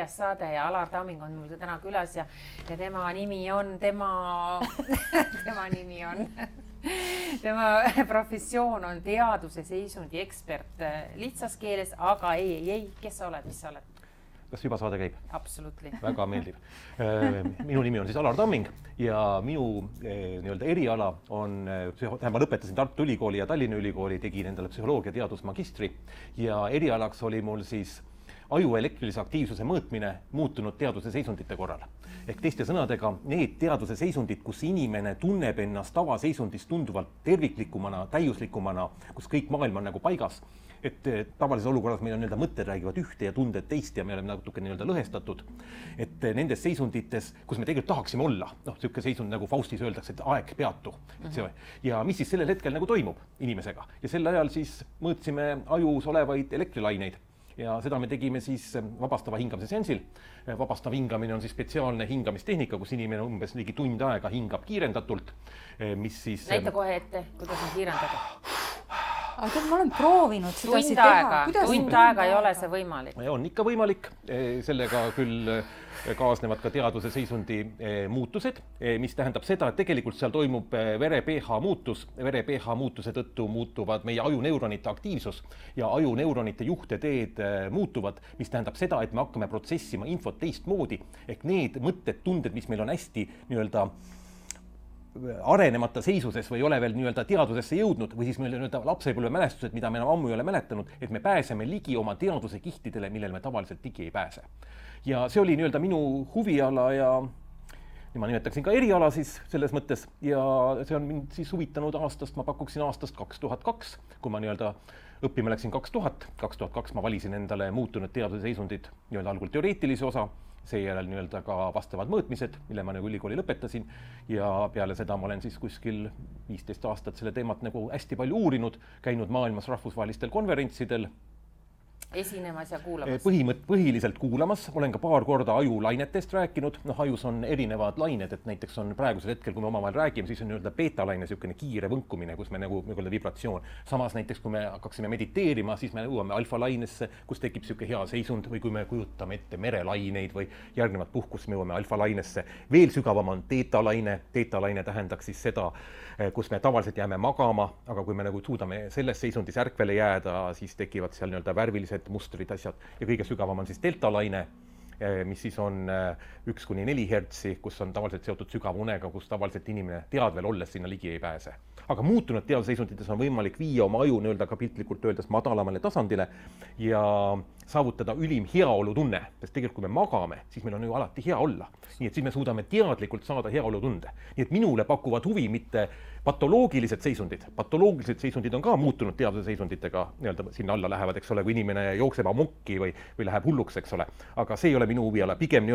4. saade ja Alar Tamming on mul täna külas ja tema nimi on, tema professioon on teaduse seisundi ekspert lihtsas keeles, aga ei, kes sa oled, mis sa oled? Kas juba saade käib? Absolutely. Väga meeldiv. Minu nimi on siis Alar Tamming ja minu eriala on, ma lõpetasin Tartu Ülikooli ja Tallinna Ülikooli, tegin endale psühholoogia teadusmagistri ja erialaks oli mul siis aju elektrilise aktiivsuse mõõtmine muutunud teaduse seisundite korral. Ehk teiste sõnadega, need teaduse seisundid, kus inimene tunneb ennast tavaseisundist tunduvalt terviklikumana, täiuslikumana, kus kõik maailm on nagu paigas, et tavalises olukorras meil on mõtted räägivad ühte ja tunded teist ja me oleme natuke lõhestatud. Et nendes seisundites, kus me tegelikult tahaksime olla, selline seisund nagu Faustis öeldakse, et aeg peatu. Ja mis siis sellel hetkel nagu toimub inimesega? Ja sel ajal siis mõõtsime ajus olevaid elektrilaineid. Ja seda me tegime siis vabastava hingamise seansil. Vabastav hingamine on siis spetsiaalne hingamistehnika, kus inimene umbes ligi tund aega hingab kiirendatult, mis siis... Näita kohe ette, kuidas on kiirendada. Aga ma olen proovinud seda teha. Tund aega ei ole see võimalik. On ikka võimalik. Sellega küll kaasnevad ka teaduse seisundi muutused, mis tähendab seda, et tegelikult seal toimub vere pH muutus. Vere pH muutuse tõttu muutuvad meie ajuneuronite aktiivsus ja ajuneuronite juhteteed muutuvad, mis tähendab seda, et me hakkame protsessima infot teistmoodi. Ehk need mõtted, tunded, mis meil on hästi arenemata seisuses või ei ole veel teadusesse jõudnud või siis meil lapsepõlve mälestused, mida me enam ammu ei ole mäletanud, et me pääseme ligi oma teaduse kihtidele, millele me tavaliselt ligi ei pääse. Ja see oli minu huviala ja ma nimetaksin ka eriala siis selles mõttes ja see on mind siis huvitanud aastast, ma pakuksin aastast 2002, kui ma õppima läksin 2002 ma valisin endale muutunud teaduse seisundid algul teoreetilise osa, seejärel ka vastavad mõõtmised, mille ma ülikooli lõpetasin ja peale seda ma olen siis kuskil 15 aastat selle teemat hästi palju uurinud, käinud maailmas rahvusvahelistel konverentsidel. Esinemas ja kuulamas? Põhiliselt kuulamas, olen ka paar korda ajulainetest rääkinud, ajus on erinevad lained, et näiteks on praegusel hetkel, kui me omavahel räägime, siis on beta-laine selline kiire võnkumine, kus me vibratsioon. Samas näiteks, kui me hakkaksime mediteerima, siis me jõuame alfa-lainesse, kus tekib selline hea seisund või kui me kujutame ette merelaineid või järgnevat puhkust, me jõuame alfa-lainesse. Veel sügavam on teeta-laine. Teeta-laine tähendaks siis seda, kus me tavaliselt jääme magama, aga kui me suudame selles seisundis ärkvele jääda, siis tekivad seal värvilised mustrid asjad ja kõige sügavam on siis delta-laine, mis siis on 1-4 hertsi, kus on tavaliselt seotud sügavunega, kus tavaliselt inimene teadvel olles sinna ligi ei pääse. Aga muutunud teaduseisundites on võimalik viia oma aju ka piltlikult öeldes madalamale tasandile ja saavutada ülim heaolutunne, sest tegelikult kui me magame, siis meil on ju alati hea olla. Nii et siis me suudame teadlikult saada heaolutunde. Nii et minule pakuvad huvi mitte patoloogilised seisundid. Patoloogilised seisundid on ka muutunud teaduse seisunditega, sinna alla lähevad, eks ole, kui inimene jookseb amokki või läheb hulluks, eks ole. Aga see ei ole minu huviala. Pigem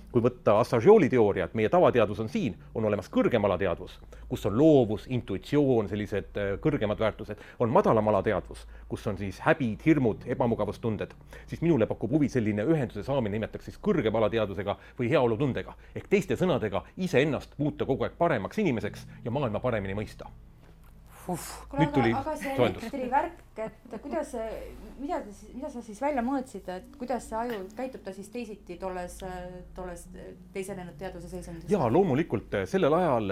kui võtta Assagioli teooria, et meie tavateadus on siin, on olemas kõrgemalateadvus, kus on loovus, intuitsioon, sellised kõrgemad väärtused, on madalamalateadvus, kus on siis häbid, hirmud, ebamugavustunded, siis minule pakub huvi selline ühenduse saamine, nimetaks siis kõrgemalateadusega või heaolutundega. Ehk teiste sõnadega iseennast muuta kogu aeg paremaks inimeseks ja maailma paremini mõista. Nüüd tuli aga see elektrivärk, et mida sa siis välja mõõtsid, et kuidas see aju käitub ta siis teisiti tolles teisenenud teaduse seisundis? Jaa, loomulikult sellel ajal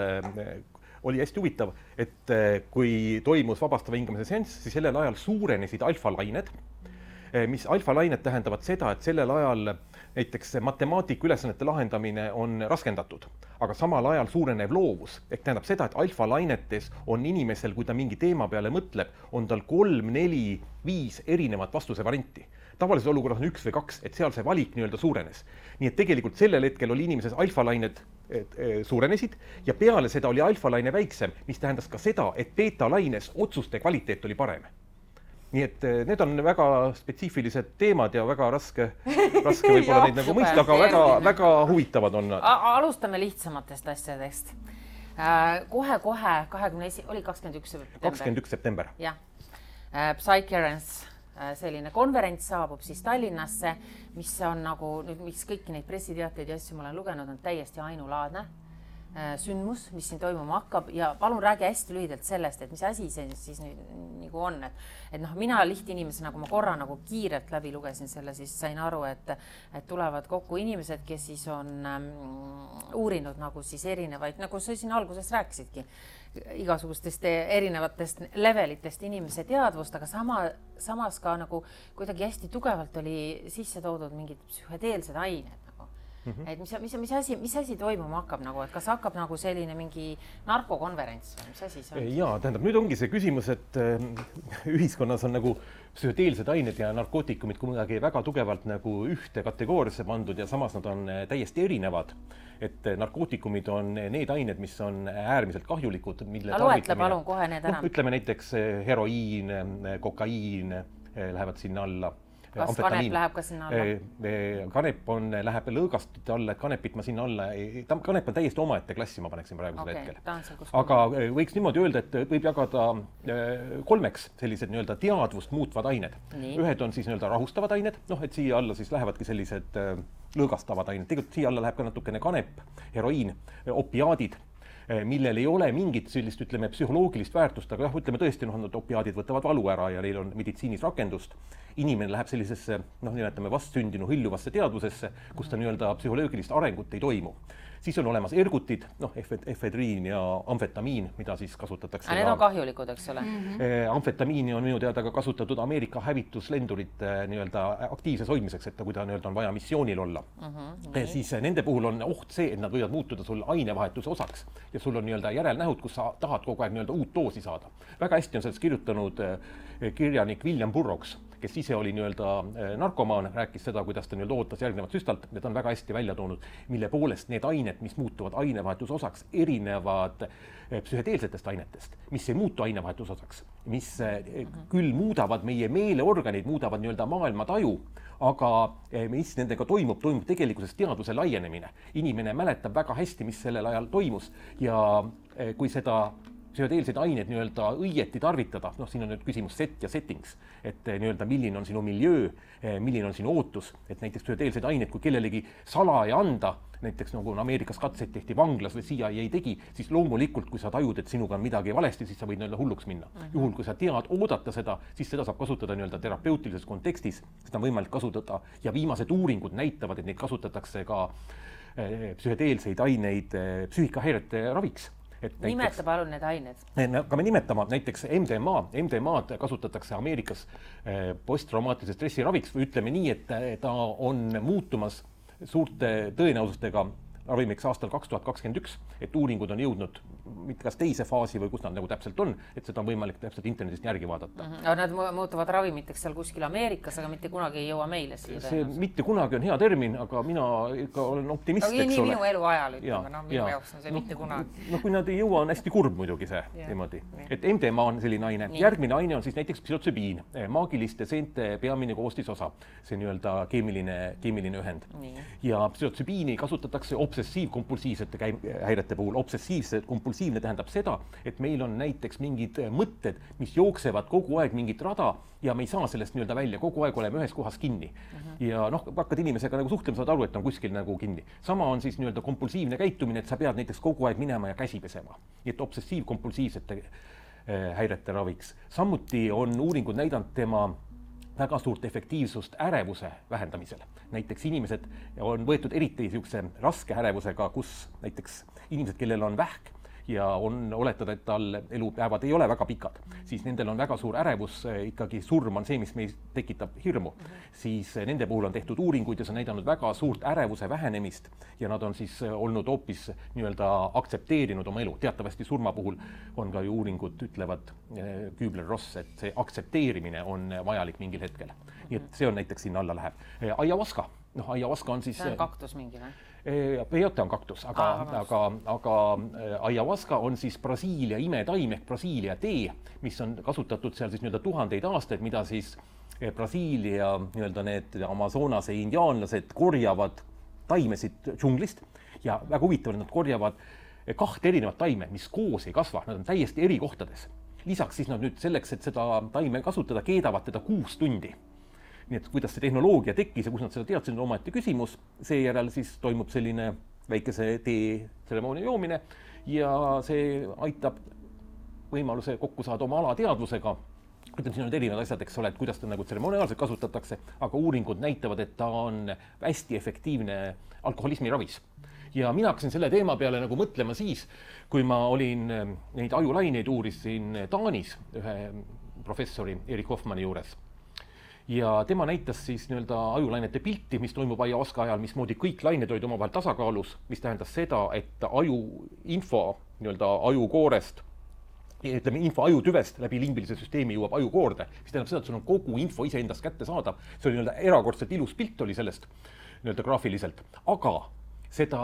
oli hästi huvitav, et kui toimus vabastava hingamise seanss, siis sellel ajal suurenesid alfa-lained, mis alfa-lained tähendavad seda, et sellel ajal näiteks matemaatika ülesannete lahendamine on raskendatud, aga samal ajal suureneb loovus. Ehk tähendab seda, et alfa-lainetes on inimesel, kui ta mingi teema peale mõtleb, on tal 3, 4, 5 erinevat vastuse varianti. Tavalises olukorras on 1 või 2, et seal see valik suurenes. Nii et tegelikult sellel hetkel oli inimeses alfa-lained suurenesid ja peale seda oli alfa-laine väiksem, mis tähendas ka seda, et beta-laines otsuste kvaliteet oli parem. Nii et need on väga spetsiifilised teemad ja väga raske võib-olla neid mõista, aga väga huvitavad on. Alustame lihtsamatest asjadest. Kohe 21. september. Jah. Psycherance, selline konverents saabub siis Tallinnasse, mis on mis kõiki neid pressiteateid ja asju ma olen lugenud, on täiesti ainulaadne. sündmus, mis siin toimuma hakkab ja palun räägi hästi lühidalt sellest, et mis asi see siis nüüd nagu on, et noh, mina lihtinimesena, kui ma korra nagu kiirelt läbi lugesin selle, siis sain aru, et tulevad kokku inimesed, kes siis on uurinud nagu siis erinevaid, nagu sa siin alguses rääkisidki, igasugustest erinevatest levelitest inimese teadvust, aga samas ka nagu kuidagi hästi tugevalt oli sisse toodud mingid psühhedeelsed ained. Et mis asi toimuma hakkab nagu, et kas hakkab nagu selline mingi narkokonverents või mis asi see on? Jaa, tähendab, nüüd ongi see küsimus, et ühiskonnas on nagu psühhedeelsed ained ja narkootikumid kuidagi väga tugevalt nagu ühte kategooriasse pandud ja samas nad on täiesti erinevad. Et narkootikumid on need ained, mis on äärmiselt kahjulikud, mille loetle palun kohe need enam. Ütleme näiteks heroiin, kokaiin lähevad sinna alla. Kas kanep läheb ka sinna alla? Kanep läheb lõõgastute alla, et kanepit ma sinna alla, kanep on täiesti omaette klassi, ma paneksin praegusel hetkel. Aga võiks niimoodi öelda, et võib jagada kolmeks sellised nii-öelda teadvust muutvad ained. Ühed on siis nii-öelda rahustavad ained, et siia alla siis lähevadki sellised lõõgastavad ained. Tegelikult siia alla läheb ka natukene kanep, heroiin, opiaadid, millel ei ole mingit sellist, ütleme, psühholoogilist väärtust, aga ütleme tõesti, nad opiaadid võtavad valu ära ja neil on meditsiinis rakendust. Inimene läheb sellisesse, nimetame vastsündinu hõljuvasse teadvusesse, kus ta nii-öelda psühholoogilist arengut ei toimu. Siis on olemas ergutid, efedriin ja amfetamiin, mida siis kasutatakse. Need on kahjulikud, eks ole? Amfetamiini on minu teada ka kasutatud Ameerika hävituslendurite nii-öelda aktiivses hoidmiseks, et kui ta nii-öelda on vaja missioonil olla. Siis nende puhul on oht see, et nad võivad muutuda sul ainevahetuse osaks ja sul on nii-öelda järelnähud, kus sa tahad kogu aeg nii-öelda uut doosi saada. Väga hästi on sellest kirjutanud kirjanik William Burroughs, kes ise oli nii-öelda narkomaan, rääkis seda, kuidas ta nii-öelda ootas järgnevat süstalt, need on väga hästi välja toonud, mille poolest need ained, mis muutuvad ainevahetuse osaks, erinevad psühhedeelsetest ainetest, mis ei muutu ainevahetuse osaks, mis küll muudavad meie meeleorganid, muudavad nii-öelda maailma taju, aga mis nendega toimub tegelikkuses teadvuse laienemine. Inimene mäletab väga hästi, mis sellel ajal toimus ja kui seda psühhedeelseid aineid nii-öelda õieti tarvitada, siin on nüüd küsimus set ja settings, et nii-öelda milline on sinu miljöö, milline on sinu ootus, et näiteks psühhedeelseid aineid, kui kellelegi salaja anda, näiteks nagu Ameerikas katseid tehti vanglas või CIA ei tegi, siis loomulikult, kui sa tajud, et sinuga on midagi valesti, siis sa võid nii-öelda hulluks minna. Juhul, kui sa tead oodata seda, siis seda saab kasutada nii-öelda terapeutilises kontekstis, seda on võimalik kasutada ja viimased uuringud näitavad, et neid kasutatakse ka psühhedeelseid aineid psüühikahäirete raviks. Nimeta palun need ained. Hakkame nimetama näiteks MDMA-d kasutatakse Ameerikas posttraumaatilise stressi raviks või ütleme nii, et ta on muutumas suurte tõenäosustega ravimiks aastal 2021, et uuringud on jõudnud mitte kas teise faasi või kus nad nagu täpselt on, et seda on võimalik täpselt internetist järgi vaadata. Nad muutuvad ravimiteks seal kuskil Ameerikas, aga mitte kunagi ei jõua meile siia. See mitte kunagi on hea termin, aga mina ikka olen optimist, eks ole. Nii minu elu ajal, ütleme, minu jaoks on see mitte kunagi. Kui nad ei jõua, on hästi kurb muidugi see niimoodi. Et MDMA on selline aine. Järgmine aine on siis näiteks psühhotsübiin, maagiliste seente peamine koostisosa, see nii-öelda keemiline ühend. Ja psühhotsübiini kasutatakse obsessiivkompulsiivsete häirete puhul. Obsessiivse kompulsiivne tähendab seda, et meil on näiteks mingid mõtted, mis jooksevad kogu aeg mingit rada ja me ei saa sellest nii-öelda välja, kogu aeg oleme ühes kohas kinni. Ja hakkad inimesega nagu suhtlema, saad aru, et on kuskil nagu kinni. Sama on siis nii-öelda kompulsiivne käitumine, et sa pead näiteks kogu aeg minema ja käsi pesema. Nii et obsessiivkompulsiivsete häirete raviks. Samuti on uuringud näidanud tema väga suurt efektiivsust ärevuse vähendamisel. Näiteks inimesed on võetud eriti niisuguse raske ärevusega, kus näiteks inimesed, kellel on vähk ja on oletada, et tal elupäevad ei ole väga pikad, siis nendel on väga suur ärevus, ikkagi surm on see, mis meis tekitab hirmu. Siis nende puhul on tehtud uuringuid ja see on näidanud väga suurt ärevuse vähenemist ja nad on siis olnud hoopis nii-öelda aktsepteerinud oma elu. Teatavasti surma puhul on ka ju uuringud ütlevad Kübler-Ross, et see aktsepteerimine on vajalik mingil hetkel. Nii et see on näiteks sinna alla läheb. Ayahuasca. Ayahuasca on siis... See on kaktus mingi või? Peyote on kaktus, aga ayahuasca on siis Brasiilia imetaim ehk Brasiilia tee, mis on kasutatud seal siis nii-öelda tuhandeid aastaid, mida siis Brasiilia nii-öelda need Amazonase indiaanlased korjavad taimesid džunglist ja väga huvitav, nad korjavad 2 erinevat taime, mis koos ei kasva, nad on täiesti eri kohtades. Lisaks siis nad nüüd selleks, et seda taime kasutada, keedavad teda 6 tundi. Nii et kuidas see tehnoloogia tekkis ja kus nad seda teadsid, on omaette küsimus. Seejärel siis toimub selline väikese teetseremoonia joomine ja see aitab võimaluse kokku saada oma alateadvusega. Ütleme, siin on erinevad asjad, eks ole, et kuidas ta nagu tseremoniaalselt kasutatakse, aga uuringud näitavad, et ta on hästi efektiivne alkoholismi ravis. Ja mina hakkasin selle teema peale nagu mõtlema siis, kui ma olin neid ajulaineid uurisin Taanis ühe professori Erik Hoffmanni juures. Ja tema näitas siis ajulainete pilti, mis toimub ayahuasca ajal, mismoodi kõik lained olid omavahel tasakaalus, mis tähendas seda, et info ajukoorest, ütleme info ajutüvest läbi limbilise süsteemi jõuab ajukoorde, mis tähendab seda, et sul on kogu info iseendast kätte saadav. See oli erakordselt ilus pilt oli sellest graafiliselt, aga seda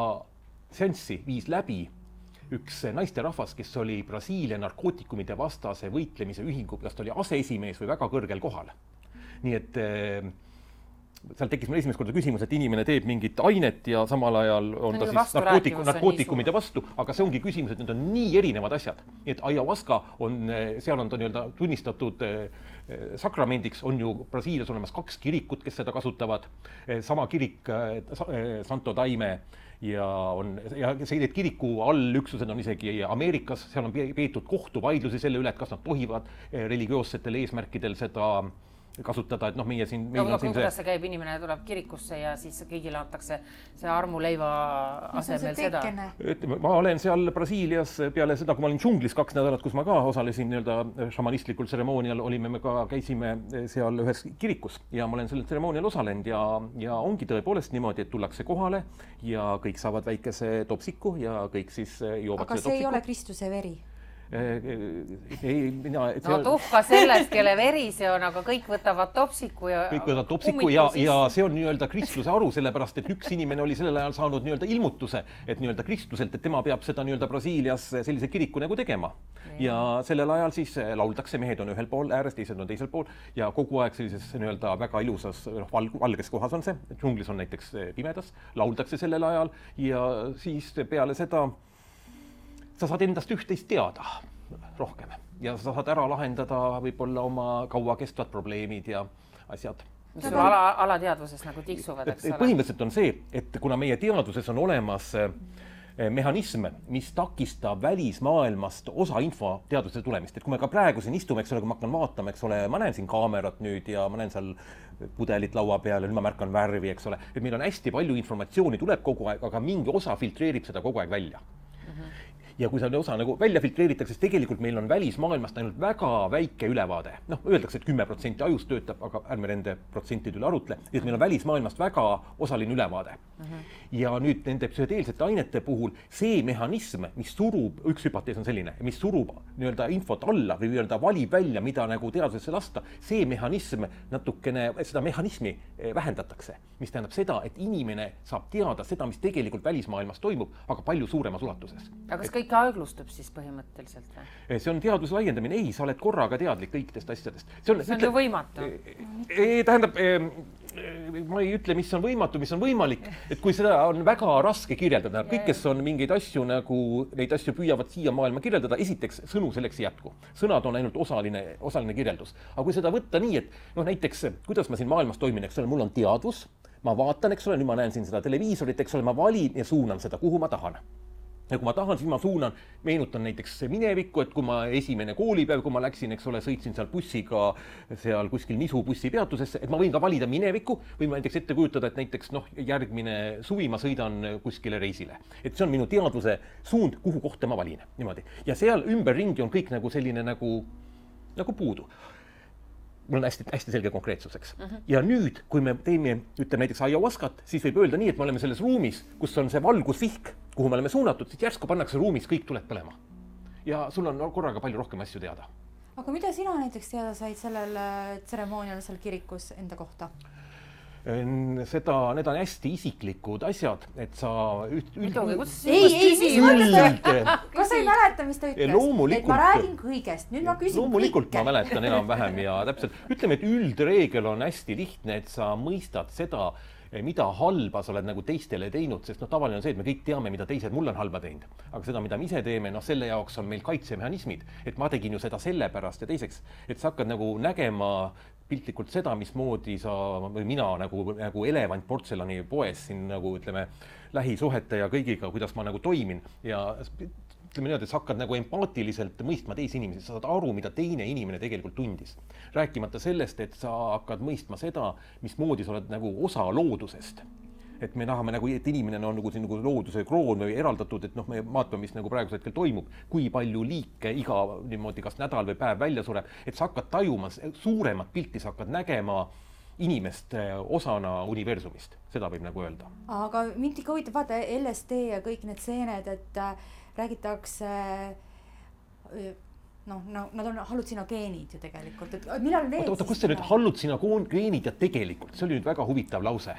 seanssi viis läbi üks naisterahvas, kes oli Brasiilia narkootikumide vastase võitlemise ühingu, kas ta oli aseesimees või väga kõrgel kohal. Nii et seal tekkis meil esimest korda küsimus, et inimene teeb mingit ainet ja samal ajal on ta siis narkootikumide vastu, aga see ongi küsimus, et need on nii erinevad asjad. Nii et ayahuasca on, seal on ta tunnistatud sakramendiks, on ju Brasiilias olemas 2 kirikut, kes seda kasutavad. Sama kirik Santo Daime ja need kiriku allüksused on isegi Ameerikas, seal on peetud kohtuvaidlusi selle üle, et kas nad tohivad religioossetel eesmärkidel seda kasutada, et meie siin... Kuidas see käib, inimene tuleb kirikusse ja siis kõigile antakse see armuleiva asemel seda? Ma olen seal Brasiilias peale seda, kui ma olin džunglis 2 nädalat, kus ma ka osalesin šamanistlikul tseremoonial, me käisime seal ühes kirikus ja ma olen sellel tseremoonial osalenud ja ongi tõepoolest niimoodi, et tullakse kohale ja kõik saavad väikese topsiku ja kõik siis joovad aga see ei ole Kristuse veri? Tuhka sellest, kelle veri see on, aga kõik võtavad topsiku ja see on kristluse aru, sellepärast, et üks inimene oli sellel ajal saanud ilmutuse, et kristluselt, et tema peab seda Brasiilias sellise kiriku nagu tegema. Ja sellel ajal siis lauldakse, mehed on ühel pool ääres, teised on teisel pool ja kogu aeg sellises väga ilusas valges kohas on see, džunglis on näiteks pimedas, lauldakse sellel ajal ja siis peale seda sa saad endast üht-teist teada rohkem ja sa saad ära lahendada võib-olla oma kaua kestvad probleemid ja asjad. Mis sul alateadvuses nagu tiksuvad, eks ole? Põhimõtteliselt on see, et kuna meie teaduses on olemas mehhanism, mis takistab välismaailmast osa info teaduse tulemist. Et kui me ka praegu siin istume, eks ole, kui ma hakkan vaatama, eks ole, ma näen siin kaamerat nüüd ja ma näen seal pudelit laua peal ja nüüd ma märkan värvi, eks ole. Et meil on hästi palju informatsiooni tuleb kogu aeg, aga mingi osa filtreerib seda kogu aeg välja. Ja kui see osa nagu välja filtreeritakse, siis tegelikult meil on välismaailmast ainult väga väike ülevaade. Öeldakse, et 10% ajust töötab, aga ärme nende protsentide üle arutle, et meil on välismaailmast väga osaline ülevaade. Ja nüüd nende psühhedeelsete ainete puhul see mehhanism, mis surub, üks hüpotees on selline, mis surub infot alla või valib välja, mida nagu teadusesse lasta, see mehhanism natukene, seda mehhanismi vähendatakse, mis tähendab seda, et inimene saab teada seda, mis tegelikult välismaailmas toimub, aga palju suuremas ulatuses. Aga kas kõik aeglustub siis põhimõtteliselt või? See on teaduse laiendamine. Ei, sa oled korraga teadlik kõikidest asjadest. See on ju võimatu. Tähendab, ma ei ütle, mis on võimatu, mis on võimalik. Et kui seda on väga raske kirjeldada, kõik, kes on mingeid asju nagu, neid asju püüavad siia maailma kirjeldada, esiteks sõnu selleks ei jätku. Sõnad on ainult osaline kirjeldus. Aga kui seda võtta nii, et näiteks, kuidas ma siin maailmas toimin, eks ole, mul on teadvus, ma vaatan, eks ole, nüüd ma näen siin seda televiisorit, eks ole, ma valin ja suunan seda, kuhu ma tahan. Ja kui ma tahan, siis ma suunan, meenutan näiteks minevikku, et kui ma esimene koolipäev, kui ma läksin, eks ole, sõitsin seal bussiga seal kuskil Nisu bussipeatusesse, et ma võin ka valida minevikku või ma näiteks ette kujutada, et näiteks järgmine suvi ma sõidan kuskile reisile. Et see on minu teadvuse suund, kuhu kohta ma valin. Niimoodi. Ja seal ümberringi on kõik nagu selline nagu puudu. Mul on hästi selge konkreetsuseks. Ja nüüd, kui me teeme, ütleme näiteks ayahuascat, siis võib öelda nii, et me oleme selles ruumis, kus on see valgusvihk, kuhu me oleme suunatud, siis järsku pannakse ruumis, kõik tuleb põlema. Ja sul on korraga palju rohkem asju teada. Aga mida sina näiteks teada said sellel tseremoonial seal kirikus enda kohta? Need on hästi isiklikud asjad, et sa kas sa ei mäleta, mis ta ütles? Et ma räägin kõigest, nüüd ma küsin loomulikult kõike. Ma mäletan enam-vähem ja täpselt. Ütleme, et üldreegel on hästi lihtne, et sa mõistad seda, mida halba sa oled nagu teistele teinud, sest tavaline on see, et me kõik teame, mida teised mul on halba teinud. Aga seda, mida me ise teeme, selle jaoks on meil kaitsemehhanismid, et ma tegin ju seda sellepärast ja teiseks, et sa hakkad nagu nägema piltlikult seda, mismoodi sa või mina nagu elevant portselani poes siin nagu ütleme lähisuhete ja kõigiga, kuidas ma nagu toimin ja ütleme niimoodi, et sa hakkad nagu empaatiliselt mõistma teisi inimesi, sa saad aru, mida teine inimene tegelikult tundis. Rääkimata sellest, et sa hakkad mõistma seda, mismoodi sa oled nagu osa loodusest. Et me tahame nagu, et inimene on nagu siin nagu looduse kroon või eraldatud, et me vaatame, mis nagu praegusel hetkel toimub, kui palju liike iga niimoodi kas nädal või päev välja sureb, et sa hakkad tajuma suuremat pilti, sa hakkad nägema inimest osana universumist, seda võib nagu öelda. Aga mind ikka huvitab, vaata LSD ja kõik need seened, et räägitakse, nad on hallutsinogeenid ju tegelikult, et millal need oota, kus see nüüd hallutsinogeenid ja tegelikult, see oli nüüd väga huvitav lause.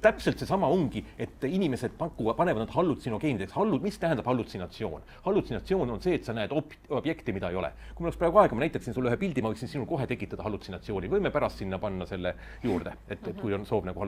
Täpselt see sama ongi, et inimesed panevad nad hallutsinogeenideks. Mis tähendab hallutsinatsioon? Hallutsinatsioon on see, et sa näed objekti, mida ei ole. Kui mul oleks praegu aega, ma näitaksin sulle ühe pildi, ma võiksin sinul kohe tekitada hallutsinatsiooni. Võime pärast sinna panna selle juurde, et kui on soov nagu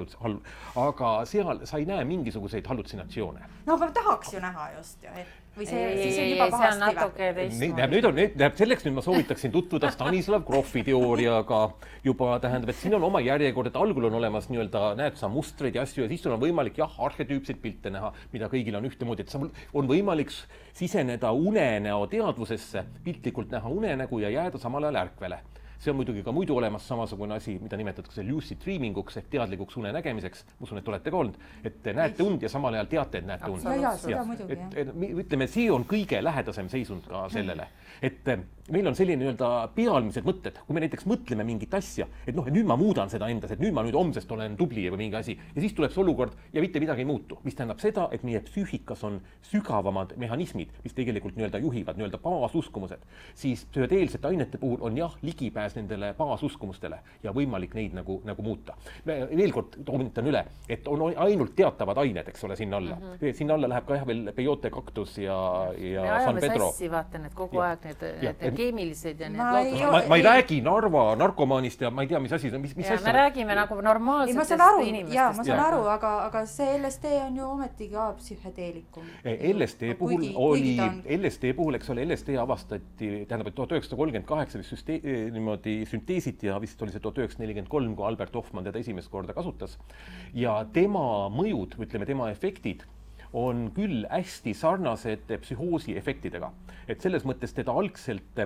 aga seal sa ei näe mingisuguseid hallutsinatsioone. No, aga tahaks ju näha just ju, või siis on juba pahasti või? Selleks nüüd ma soovitaksin tutvuda Stanislav Grofi teooriaga juba tähendab, et siin on oma järjekord, et algul on olemas nii-öelda, näed sa mustreid ja asju ja siis on võimalik arhetüüpseid pilte näha, mida kõigil on ühtemoodi, et on võimalik siseneda unenäo teadvusesse, piltlikult näha unenägu ja jääda samal ajal ärkvele. See on muidugi ka muidu olemas samasugune asi, mida nimetatakse lucid dreaminguks ehk teadlikuks une nägemiseks. Ma usun, et olete ka olnud, et näete und ja samal ajal teate, et näete und. Seda muidugi, ütleme, see on kõige lähedasem seisund ka sellele. Et meil on selline nii-öelda pealmised mõtted, kui me näiteks mõtleme mingit asja, et nüüd ma muudan seda endas, et nüüd ma homsest olen tubli või mingi asi ja siis tuleb see olukord ja mitte midagi ei muutu, mis tähendab seda, et meie psüühikas on sügavamad mehhanismid, mis tegelikult nii-öelda juhivad nii-öelda baasuskumused, siis psühhedeelsete ainete puhul on ligipääs nendele baasuskumustele ja võimalik neid nagu muuta. Veel kord toonitan üle, et on ainult teatavad ained, eks ole, sinna alla. Sinna alla läheb ka veel peyote, kaktus ja San Pedro. Sassi vaatan, et kogu aeg need keemilised ja need ma ei räägi Narva narkomaanist ja ma ei tea, mis asi, mis asja. Me räägime nagu normaalsetest inimestest. Jaa, ma saan aru, aga see LSD on ju ometigi ka psühhedeelikum. LSD puhul, eks ole, LSD avastati, tähendab, et 1938 niimoodi sünteesiti ja vist oli see 1943, kui Albert Hoffmann teda esimest korda kasutas. Ja tema mõjud, ütleme, tema efektid on küll hästi sarnased psühhoosi efektidega. Et selles mõttes teda algselt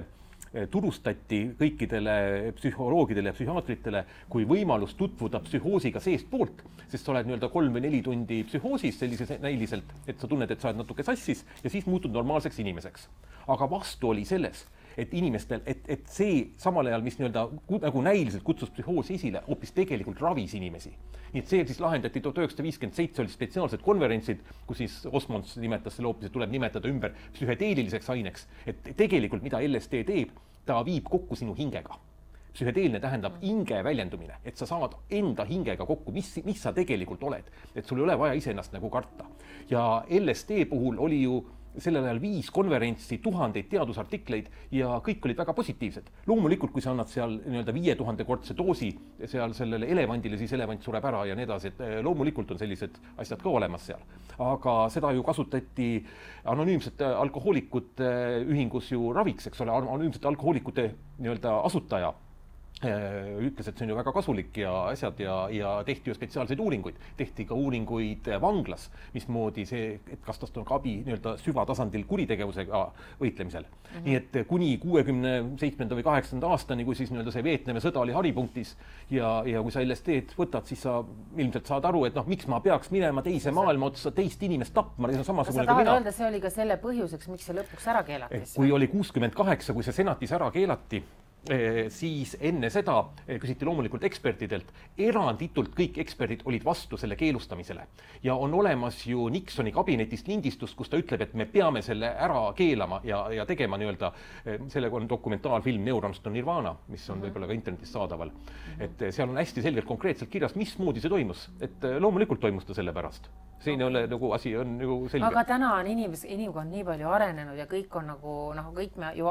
turustati kõikidele psühholoogidele ja psühhiaatritele kui võimalus tutvuda psühhoosiga seest poolt, sest sa oled nii-öelda 3 või 4 tundi psühhoosis sellises näiliselt, et sa tunned, et sa oled natuke sassis ja siis muutud normaalseks inimeseks. Aga vastu oli selles, et inimestel, et see samal ajal, mis nii-öelda nagu näiliselt kutsus psühhoosi esile, hoopis tegelikult ravis inimesi. Nii et see siis lahendati 1957 oli spetsiaalsed konverentsid, kus siis Osmonds nimetas selle hoopis, et tuleb nimetada ümber psühhedeeliliseks aineks. Et tegelikult mida LSD teeb, ta viib kokku sinu hingega. Psühhedeelne tähendab hinge väljendumine, et sa saad enda hingega kokku, mis sa tegelikult oled. Et sul ei ole vaja iseennast nagu karta. Ja LSD puhul oli ju sellel ajal 5 konverentsi, 1000 teadusartikleid ja kõik olid väga positiivsed. Loomulikult, kui sa annad seal nii-öelda 5000-kordse doosi seal sellele elevandile, siis elevant sureb ära ja nii edasi, et loomulikult on sellised asjad ka olemas seal. Aga seda ju kasutati anonüümsete alkohoolikute ühingus ju raviks, eks ole, anonüümsete alkohoolikute nii-öelda asutaja ütles, et see on ju väga kasulik ja asjad ja tehti ju spetsiaalseid uuringuid. Tehti ka uuringuid vanglas, mismoodi see, et kas tast on ka abi nii-öelda süvatasandil kuritegevusega võitlemisel. Nii et kuni 67. või 8. aastani, kui siis nii-öelda see Vietnami sõda oli haripunktis ja kui sa LSD-d võtad, siis sa ilmselt saad aru, et miks ma peaks minema teise maailma otsa teist inimest tapma, see on samasugune kui mina. Öelda, see oli ka selle põhjuseks, miks see lõpuks ära keelati. Kui oli 68, kui see senatis ära keelati, siis enne seda küsiti loomulikult ekspertidelt, eranditult kõik eksperdid olid vastu selle keelustamisele. Ja on olemas ju Nixoni kabinetist lindistust, kus ta ütleb, et me peame selle ära keelama ja tegema nii-öelda, sellega on dokumentaalfilm Neurons to Nirvana, mis on võib-olla ka internetis saadaval. Et seal on hästi selgelt konkreetselt kirjas, mismoodi see toimus. Et loomulikult toimus ta selle pärast. See ei ole nagu asi on nagu selge. Aga täna on inimkond nii palju arenenud ja kõik on nagu kõik me ju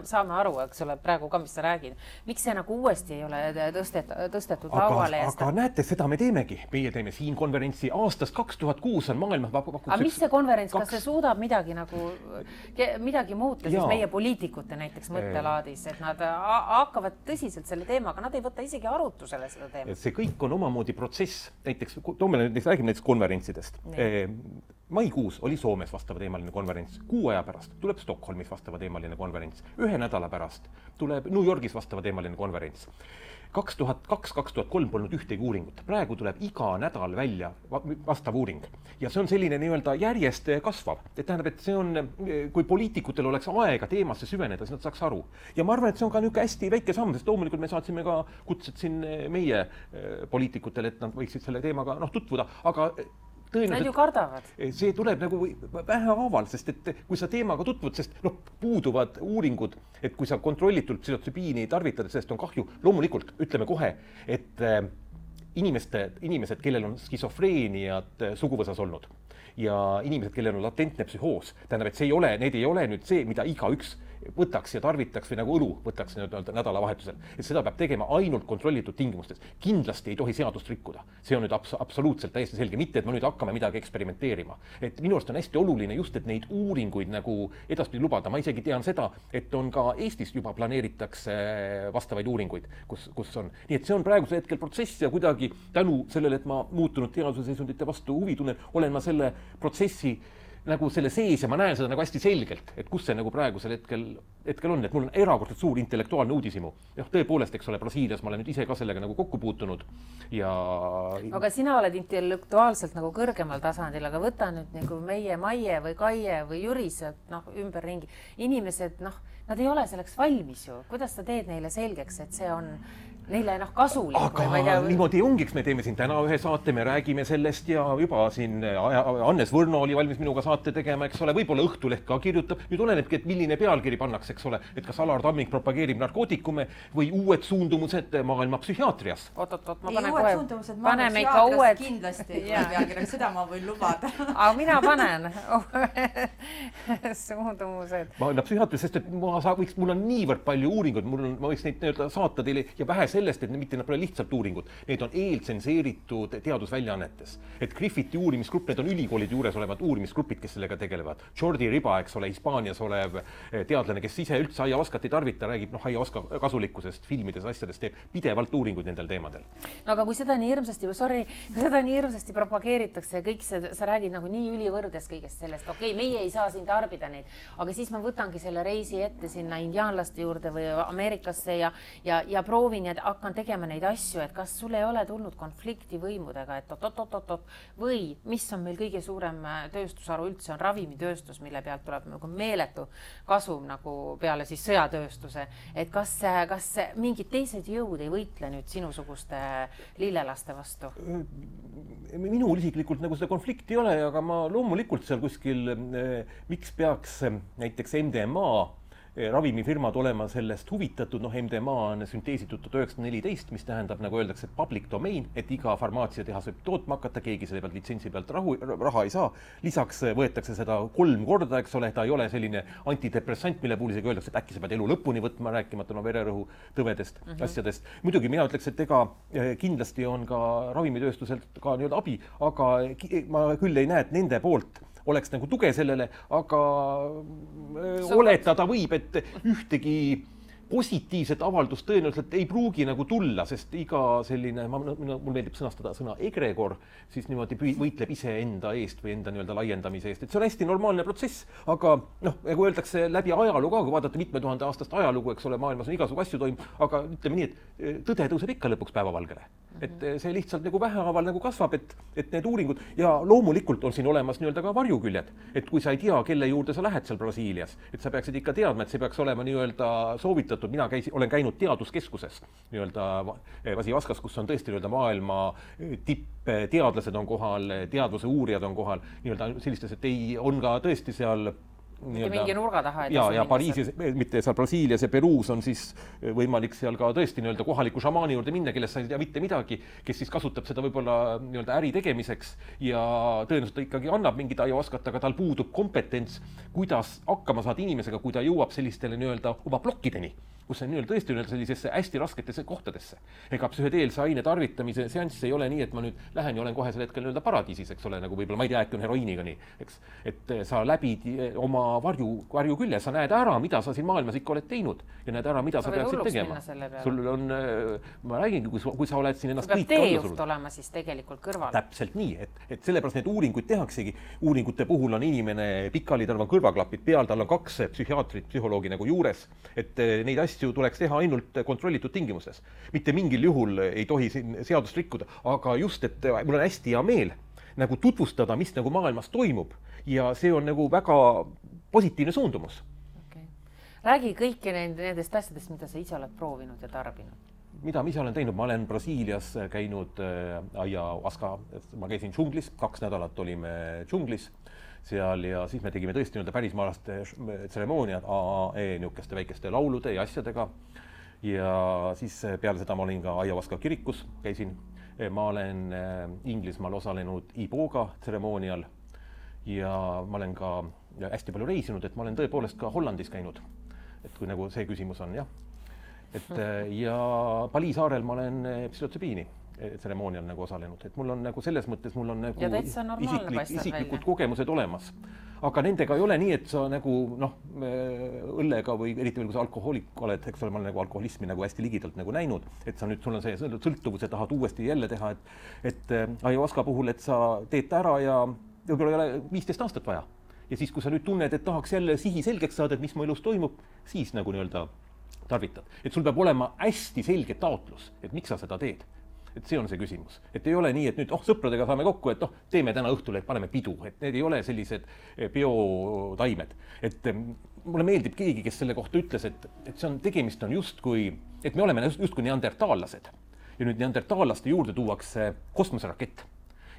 saame aru, eks ole, praegu ka, mis sa räägid. Miks see nagu uuesti ei ole tõstetud lauale? Aga näete, seda me teemegi. Meie teeme siin konverentsi aastast 2006 on maailmas aga mis see konverents, kas see suudab midagi muuta siis meie poliitikute näiteks mõttelaadis, et nad hakkavad tõsiselt selle teemaga, nad ei võta isegi arutusele seda teemat? See kõik on omamoodi protsess. Näiteks, räägime näiteks konverentsidest. Maikuus oli Soomes vastavateemaline konverents, 6 aja pärast tuleb Stockholmis vastavateemaline konverents, 1 nädala pärast tuleb New Yorgis vastavateemaline konverents. 2002-2003 polnud ühtegi uuringut. Praegu tuleb iga nädal välja vastav uuring. Ja see on selline nii-öelda järjest kasvav. Et tähendab, et see on, kui poliitikutel oleks aega teemasse süveneda, siis nad saaks aru. Ja ma arvan, et see on ka niisugune hästi väike samm, sest loomulikult me saatsime ka kutsed siin meie poliitikutele, et nad võiksid selle teemaga tutvuda, aga nad ju kardavad. See tuleb nagu vähehaaval, sest et kui sa teemaga tutvud, sest puuduvad uuringud, et kui sa kontrollitult psühhotsübiini tarvitad, sellest on kahju, loomulikult ütleme kohe, et inimesed, kellel on skisofreeniat suguvõsas olnud ja inimesed, kellel on latentne psühhoos, tähendab, et need ei ole nüüd see, mida igaüks võtaks ja tarvitaks või nagu õlu võtaks nädalavahetusel. Et seda peab tegema ainult kontrollitud tingimustes. Kindlasti ei tohi seadust rikkuda. See on nüüd absoluutselt täiesti selge. Mitte, et me nüüd hakkame midagi eksperimenteerima. Et minu arust on hästi oluline just, et neid uuringuid nagu edaspidi lubada. Ma isegi tean seda, et on ka Eestis juba planeeritakse vastavaid uuringuid, kus on. Nii et see on praeguse hetkel protsess ja kuidagi tänu sellele, et ma muutunud teaduse seisundite vastu huvi tunnen, olen ma selle protsessi nagu selle sees ja ma näen seda nagu hästi selgelt, et kus see nagu praegusel hetkel on, et mul on erakordselt suur intellektuaalne uudishimu. Tõepoolest, eks ole, Brasiilias ma olen nüüd ise ka sellega nagu kokku puutunud ja... Aga sina oled intellektuaalselt nagu kõrgemal tasandil, aga võta nüüd nagu meie Maie või Kaie või Jüris ümberringi. Inimesed, nad ei ole selleks valmis ju. Kuidas sa teed neile selgeks, et see on neile kasulik? Aga niimoodi ongi, me teeme siin täna ühe saate, me räägime sellest ja juba siin Hannes Võrno oli valmis minuga saate tegema, eks ole, võib-olla Õhtuleht ka kirjutab. Nüüd olenebki, et milline pealkiri pannakse, eks ole, et kas Alar Tamming propageerib narkootikume või uued suundumused maailma psühhiaatrias. Oot, ma panen kohe. Suundumused maailma psühhiaatrias kindlasti pealkiri, seda ma võin lubada. Aga mina panen suundumused. Ma olen psühhiaatrias, sest et mul on niivõrd palju uuringuid, ma võiks neid saata teile ja vähe sellest, et mitte nad pole lihtsalt uuringud. Need on eeltsenseeritud teadusväljaannetes. Et Griffiti uurimisgrupp, need on ülikoolide juures olevad uurimisgrupid, kes sellega tegelevad. Jordi Riba, eks ole, Hispaanias olev teadlane, kes ise üldse aiavaskat ei tarvita, räägib aiavaska kasulikkusest, filmides, asjadest, teeb pidevalt uuringuid nendel teemadel. No aga kui seda nii hirmsasti propageeritakse ja kõik sa räägid nagu nii ülivõrdes kõigest sellest, okei, meie ei saa siin tarbida neid, aga siis ma võtangi selle reisi ette sinna indiaanlaste juurde või Ameerikasse ja proovin ja hakkan tegema neid asju, et kas sul ei ole tulnud konflikti võimudega, et või mis on meil kõige suurem tööstusharu üldse on ravimitööstus, mille pealt tuleb nagu meeletu kasum nagu peale siis sõjatööstuse, et kas mingid teised jõud ei võitle nüüd sinusuguste lillelaste vastu? Minul isiklikult nagu seda konflikti ei ole, aga ma loomulikult seal kuskil, miks peaks näiteks MDMA ravimifirmad olema sellest huvitatud, MDMA on sünteesitud 1914, mis tähendab, nagu öeldakse, public domain, et iga farmaatsiatehas võib tootma hakata, keegi selle pealt litsentsi pealt raha ei saa. Lisaks võetakse seda 3 korda, eks ole, ta ei ole selline antidepressant, mille puhul isegi öeldakse, et äkki sa pead elu lõpuni võtma, rääkimata vererõhu tõvedest asjadest. Muidugi mina ütleks, et kindlasti on ka ravimitööstuselt ka nii-öelda abi, aga ma küll ei näe, et nende poolt oleks nagu tuge sellele, aga oletada võib, et ühtegi positiivset avaldust tõenäoliselt ei pruugi nagu tulla, sest iga selline, mul meeldib sõnastada sõna egregor, siis niimoodi võitleb iseenda eest või enda nii-öelda laiendamise eest. Et see on hästi normaalne protsess, aga nagu öeldakse läbi ajalugu ka, kui vaadata mitme tuhande aastast ajalugu, eks ole, maailmas on igasugu asju toimub, aga ütleme nii, et tõde tõuseb ikka lõpuks päevavalgele. Et see lihtsalt nagu vähehaaval nagu kasvab, et need uuringud ja loomulikult on siin olemas nii-öelda ka varjuküljed, et kui sa ei tea, kelle juurde sa lähed seal Brasiilias, et sa peaksid ikka teadma, et see peaks olema nii-öelda soovitatud. Mina olen käinud teaduskeskuses nii-öelda Vasivaskas, kus on tõesti nii-öelda maailma tippteadlased on kohal, teadluse uurijad on kohal, nii-öelda sellistes, et on ka tõesti seal mingi nurga taha. Ja Pariisis, mitte seal Brasiilias ja Peruus on siis võimalik seal ka tõesti nii-öelda kohaliku šamaani juurde minna, kellest sa ei tea mitte midagi, kes siis kasutab seda võib-olla nii-öelda äri tegemiseks ja tõenäoliselt ta ikkagi annab mingit aiavaskat, aga tal puudub kompetents, kuidas hakkama saada inimesega, kui ta jõuab sellistele nii-öelda oma plokkideni. kus see on tõesti sellisesse hästi rasketesse kohtadesse. Ega psühhedeelse aine tarvitamise seanss ei ole nii, et ma nüüd lähen ja olen kohe sel hetkel paradiisis, eks ole, nagu võib-olla ma ei tea, äkki on heroiiniga nii, eks. Et sa läbid oma varju külje, sa näed ära, mida sa siin maailmas ikka oled teinud ja näed ära, mida sa peaksid tegema. Sul on, ma räägingi, kui sa oled siin ennast kõik teejuht olema siis tegelikult kõrval. Täpselt nii, et sellepärast need uuringuid tehaksegi. Uuringute puhul on inimene pikali, tal on kõrvaklapid peal, tal on 2 psühhiaatrit, psühholoogi nagu juures, et neid asju tuleks teha ainult kontrollitud tingimuses. Mitte mingil juhul ei tohi siin seadust rikkuda, aga just, et mul on hästi hea meel nagu tutvustada, mis nagu maailmas toimub ja see on nagu väga positiivne suundumus. Okay. Räägi kõiki nendest asjadest, mida sa ise oled proovinud ja tarbinud. Mida ma ise olen teinud? Ma olen Brasiilias käinud ayahuasca, ma käisin džunglis, 2 nädalat olime džunglis seal ja siis me tegime tõesti pärismaalaste tseremooniad niisuguste väikeste laulude ja asjadega ja siis peale seda ma olin ka ayahuasca kirikus, käisin. Ma olen Inglismaal osalenud Iboga tseremoonial ja ma olen ka hästi palju reisinud, et ma olen tõepoolest ka Hollandis käinud, et kui nagu see küsimus on, jah. Ja Bali saarel ma olen psühhotsübiini tseremoonial nagu osalenud, et mul on nagu selles mõttes mul on nagu isiklikud kogemused olemas. Aga nendega ei ole nii, et sa nagu õllega või eriti veel kui sa alkohoolik oled, eks ole, ma olen nagu alkoholismi nagu hästi ligidalt nagu näinud, et sa nüüd, sul on see sõltuvuse tahad uuesti jälle teha, et ayahuasca puhul, et sa teed ära ja võib-olla ei ole 15 aastat vaja. Ja siis, kui sa nüüd tunned, et tahaks jälle sihi selgeks saada, et mis mu elus toimub, siis nagu tarvitad. Et sul peab olema hästi selge taotlus, et miks sa seda teed. Et see on see küsimus. Et ei ole nii, et nüüd sõpradega saame kokku, et teeme täna õhtul, et paneme pidu. Et need ei ole sellised biotaimed. Et mulle meeldib keegi, kes selle kohta ütles, et see on, tegemist on justkui, et me oleme justkui neandertaallased. Ja nüüd neandertaallaste juurde tuuakse kosmoserakett.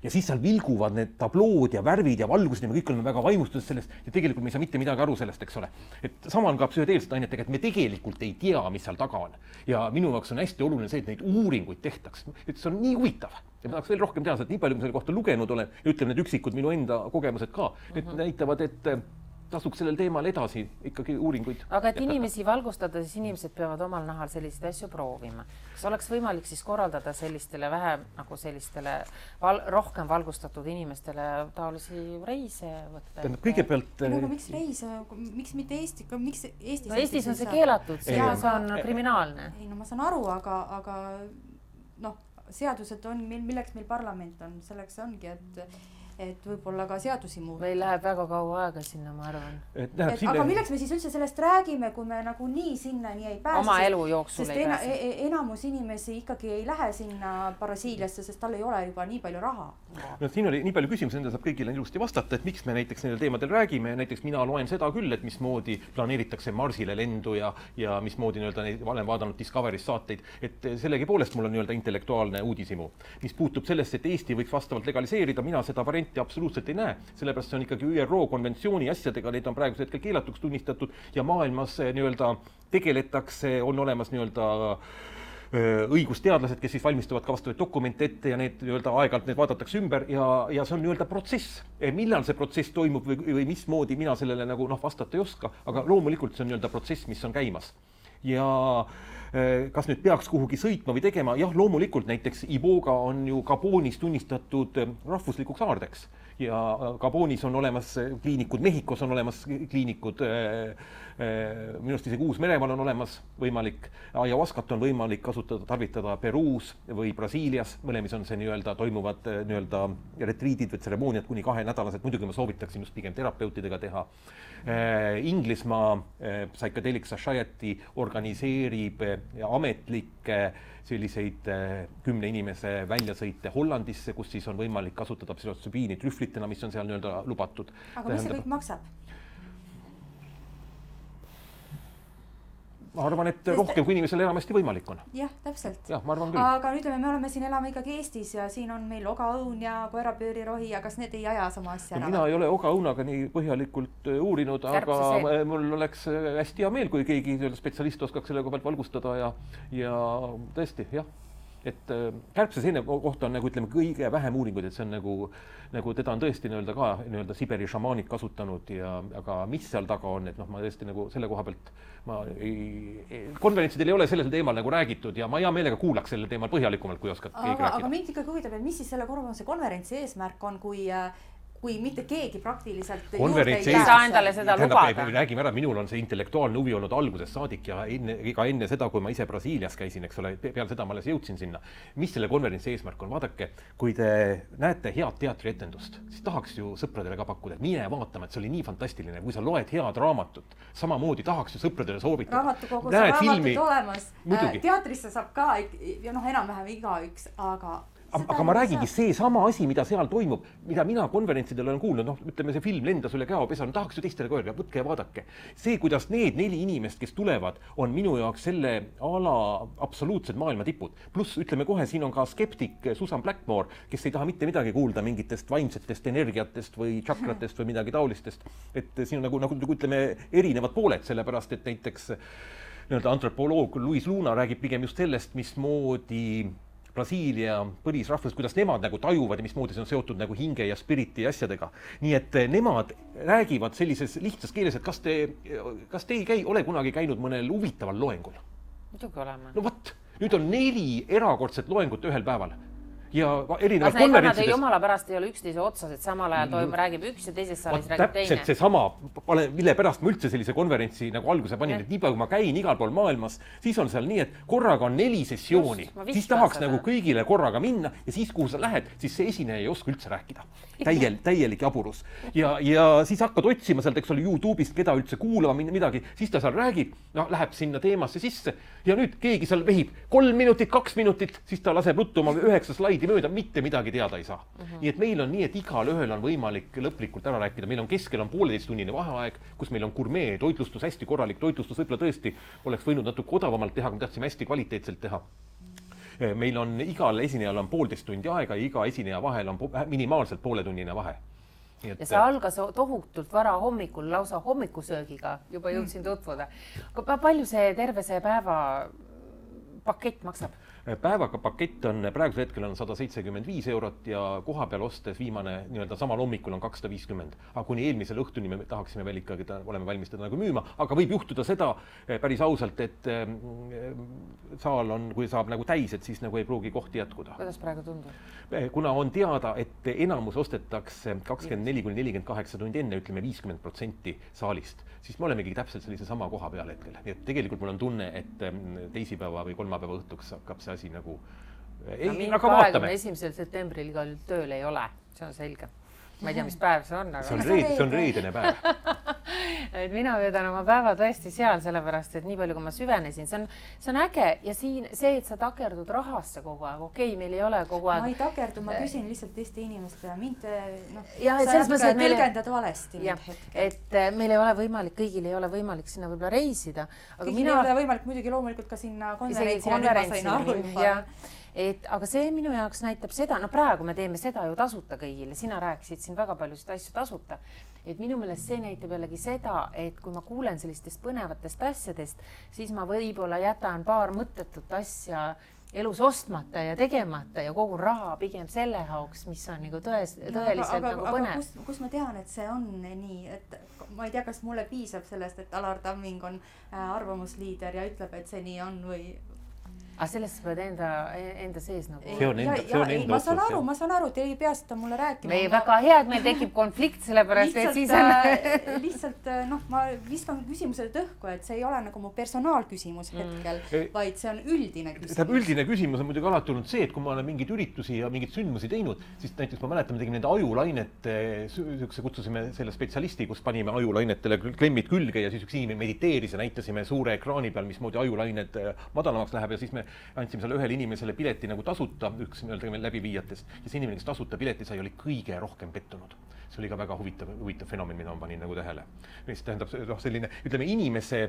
Ja siis seal vilguvad need tablood ja värvid ja valgused ja me kõik oleme väga vaimustunud sellest ja tegelikult me ei saa mitte midagi aru sellest, eks ole. Et sama on ka psühhedeelsete ainetega, et me tegelikult ei tea, mis seal taga on. Ja minu jaoks on hästi oluline see, et neid uuringuid tehtaks. Et see on nii huvitav. Ja ma tahaks veel rohkem teha, et nii palju, kui selle kohta lugenud olen ja ütleme need üksikud minu enda kogemused ka, need näitavad, et tasuks sellel teemal edasi ikkagi uuringuid. Aga et inimesi valgustada, siis inimesed peavad omal nahal selliseid asju proovima. Kas oleks võimalik siis korraldada sellistele vähem nagu sellistele rohkem valgustatud inimestele taolisi reise võtta? Kõigepealt... Aga miks reise? Miks mitte Eesti? Miks Eestis? No Eestis on see keelatud, see on kriminaalne. Ei, no ma saan aru, aga seadused on, milleks meil parlament on, selleks ongi, et võib-olla ka seadusi muuta. Meil läheb väga kaua aega sinna, ma arvan. Aga milleks me siis üldse sellest räägime, kui me nagu nii sinna nii ei pääse? Oma elu jooksul ei pääse. Sest enamus inimesi ikkagi ei lähe sinna Brasiiliasse, sest tal ei ole juba nii palju raha. No, siin oli nii palju küsimusi, enda saab kõigile ilusti vastata, et miks me näiteks nendel teemadel räägime. Näiteks mina loen seda küll, et mismoodi planeeritakse Marsile lendu ja mismoodi olen vaadanud Discovery's saateid, et sellegi poolest mul on intellektuaalne uudisimu. Mis puutub sellest, et Eesti võiks vastavalt legaliseerida, mina seda varianti absoluutselt ei näe. Sellepärast see on ikkagi ÜRO konventsiooni asjadega, need on praegusel hetkel keelatuks tunnistatud ja maailmas tegeletakse, on olemas õigusteadlased, kes siis valmistuvad ka vastavaid dokumente ette ja need aeg-ajalt need vaadatakse ümber ja see on protsess. Millal see protsess toimub või mismoodi mina sellele nagu vastata ei oska, aga loomulikult see on protsess, mis on käimas. Ja kas nüüd peaks kuhugi sõitma või tegema? Jah, loomulikult näiteks Iboga on ju Gabonis tunnistatud rahvuslikuks aardeks ja Gabonis on olemas kliinikud, Mehhikos on olemas kliinikud, minust isegi Uus-Meremaal on olemas võimalik, ayahuascat on võimalik kasutada, tarvitada Peruus või Brasiilias, mõlemis on see toimuvad retriidid või tseremooniad kuni 2 nädalased, muidugi ma soovitaksin just pigem terapeutidega teha. Inglismaa Psychedelic Society organiseerib ametlikke selliseid 10 inimese väljasõite Hollandisse, kus siis on võimalik kasutada psühhotsübiini trühvlitena, mis on seal lubatud. Aga mis see kõik maksab? Ma arvan, et rohkem kui inimesel enamasti võimalik on. Jah, täpselt. Jah, ma arvan küll. Aga nüüd me oleme siin elame ikkagi Eestis ja siin on meil ogaõun ja koerapöörirohi, aga kas need ei aja sama asja ära? Mina ei ole ogaõunaga nii põhjalikult uurinud, aga mul oleks hästi hea meel, kui keegi spetsialist oskaks selle pealt valgustada ja tõesti, jah. et kärbseseene kohta on nagu ütleme kõige vähem uuringuid, et see on nagu teda on tõesti nii-öelda Siberi šamaanid kasutanud aga mis seal taga on, et ma tõesti nagu selle koha pealt konverentsidel ei ole sellel teemal nagu räägitud ja ma hea meelega kuulaks sellel teemal põhjalikumalt, kui oskad keegi rääkida. Aga mind ikkagi huvitab, et mis siis selle konverentsi eesmärk on, kui mitte keegi praktiliselt konverentsi ei saa endale seda lubada. Räägime ära, minul on see intellektuaalne huvi olnud algusest saadik ja enne seda, kui ma ise Brasiilias käisin, eks ole, peale seda ma alles jõudsin sinna. Mis selle konverentsi eesmärk on? Vaadake, kui te näete head teatrietendust, siis tahaks ju sõpradele ka pakkuda, et mine vaatama, et see oli nii fantastiline. Kui sa loed head raamatut, samamoodi tahaks ju sõpradele soovitada. Raamatukogus on raamatud olemas. Teatrisse saab ka ja enam-vähem igaüks, aga ma räägingi see sama asi, mida seal toimub, mida mina konverentsidel olen kuulnud, ütleme see film lendas üle käopesa, tahaks ju teistele ka öelda, võtke ja vaadake. See, kuidas need 4 inimest, kes tulevad, on minu jaoks selle ala absoluutsed maailma tipud. Pluss ütleme kohe, siin on ka skeptik Susan Blackmore, kes ei taha mitte midagi kuulda mingitest vaimsetest energiatest või chakratest või midagi taolistest. Et siin on nagu ütleme erinevad pooled, sellepärast et näiteks antropoloog Luis Luna räägib pigem just sellest, mismoodi Brasiilia põlisrahvus, kuidas nemad nagu tajuvad ja mismoodi see on seotud nagu hinge ja spiriti asjadega. Nii et nemad räägivad sellises lihtsas keeles, et kas te ole kunagi käinud mõnel huvitaval loengul? Muidugi oleme. No võt, nüüd on 4 erakordset loengut ühel päeval. Ja erinevad konverentsides. Jumala pärast ei ole üksteise otsas, et samal ajal räägib üks ja teises saalis räägib teine. Täpselt see sama, mille pärast ma üldse sellise konverentsi nagu alguse panin, et nii palju kui ma käin igal pool maailmas, siis on seal nii, et korraga on 4 sessiooni, siis tahaks nagu kõigile korraga minna ja siis, kuhu sa lähed, siis see esineja ei oska üldse rääkida. Täielik jaburus. Ja siis hakkad otsima sealt, eks ole, YouTube'ist, keda üldse kuulama midagi, siis ta seal räägib, läheb sinna teemasse sisse ja nüüd keegi seal vehib 3 minutit, 2 minutit, siis ta laseb ruttu oma 9 slaidi mööda, mitte midagi teada ei saa. Nii et meil on nii, et igal ühel on võimalik lõplikult ära rääkida. Meil on keskel 1,5-tunnine vaheaeg, kus meil on gurmee toitlustus, hästi korralik toitlustus, võib-olla tõesti oleks võinud natuke odavamalt teha, kui me tahtsime hästi kvaliteetselt teha. Meil on igal esinejal on 1,5 tundi aega ja iga esineja vahel on minimaalselt 1,5-tunnine vahe. Ja see algas tohutult vara hommikul, lausa hommikusöögiga juba jõudsin tutvuda. Palju see terve see päeva pakett maksab? Päevaga pakett on praegusel hetkel on 175 eurot ja koha peal ostes viimane nii-öelda samal hommikul on 250. Aga kuni eelmisel õhtuni me tahaksime veel ikkagi, oleme valmis teda nagu müüma, aga võib juhtuda seda päris ausalt, et saal on, kui saab nagu täis, et siis nagu ei pruugi kohti jätkuda. Kuidas praegu tundub? Kuna on teada, et enamus ostetakse 24-48 tundi enne, ütleme 50% saalist, siis me olemegi täpselt sellise sama koha peal hetkel. Nii et tegelikult mul on tunne, et teisipäeva või kolmapäeva õhtuks hakkab see asi nagu... Aga vaatame. 21. septembril igal tööl ei ole, see on selge. Ma ei tea, mis päev see on, aga... See on reedene päev. Et mina veedan oma päeva tõesti seal, sellepärast, et nii palju, kui ma süvenesin, see on äge ja siin see, et sa takerdud rahasse kogu aeg, okei, meil ei ole kogu aeg... Ma ei takerdu, ma küsin lihtsalt teiste inimeste ja mind sa tõlgendad valesti. Et meil ei ole võimalik, kõigil ei ole võimalik sinna võib-olla reisida. Kõigil ei ole võimalik muidugi loomulikult ka sinna konverentsi. Aga see minu jaoks näitab seda, praegu me teeme seda ju tasuta kõigile, sina rääkisid siin väga paljusid asju tasuta, et minu meelest see näitab jällegi seda, et kui ma kuulen sellistest põnevatest asjadest, siis ma võib-olla jätan paar mõttetut asja elus ostmata ja tegemata ja kogu raha pigem selle jaoks, mis on nagu tõeliselt nagu põnev. Aga kus ma tean, et see on nii, et ma ei tea, kas mulle piisab sellest, et Alar Tamming on arvamusliider ja ütleb, et see nii on või... Aga sellest sa pead enda sees nagu... See on enda otsus. Ma saan aru, te ei pea seda mulle rääkima. Või väga hea, et meil tekib konflikt, sellepärast, et siis on... Lihtsalt, ma viskan küsimusele tõhku, et see ei ole nagu mu personaalküsimus hetkel, vaid see on üldine küsimus. Üldine küsimus on muidugi alati olnud see, et kui ma olen mingeid üritusi ja mingeid sündmusi teinud, siis näiteks ma mäletan, me tegime nende ajulainete, kutsusime selle spetsialisti, kus panime ajulainetele klemmid külge ja siis üks inimene mediteeris ja näitasime suure ekraani peal, mismoodi ajulained madalamaks läheb ja siis me andsime selle ühele inimesele pileti nagu tasuta, üks läbiviijatest ja see inimene, kes tasuta pileti sai, oli kõige rohkem pettunud. See oli ka väga huvitav fenomen, mida ma panin nagu tähele. Mis tähendab selline, ütleme, inimese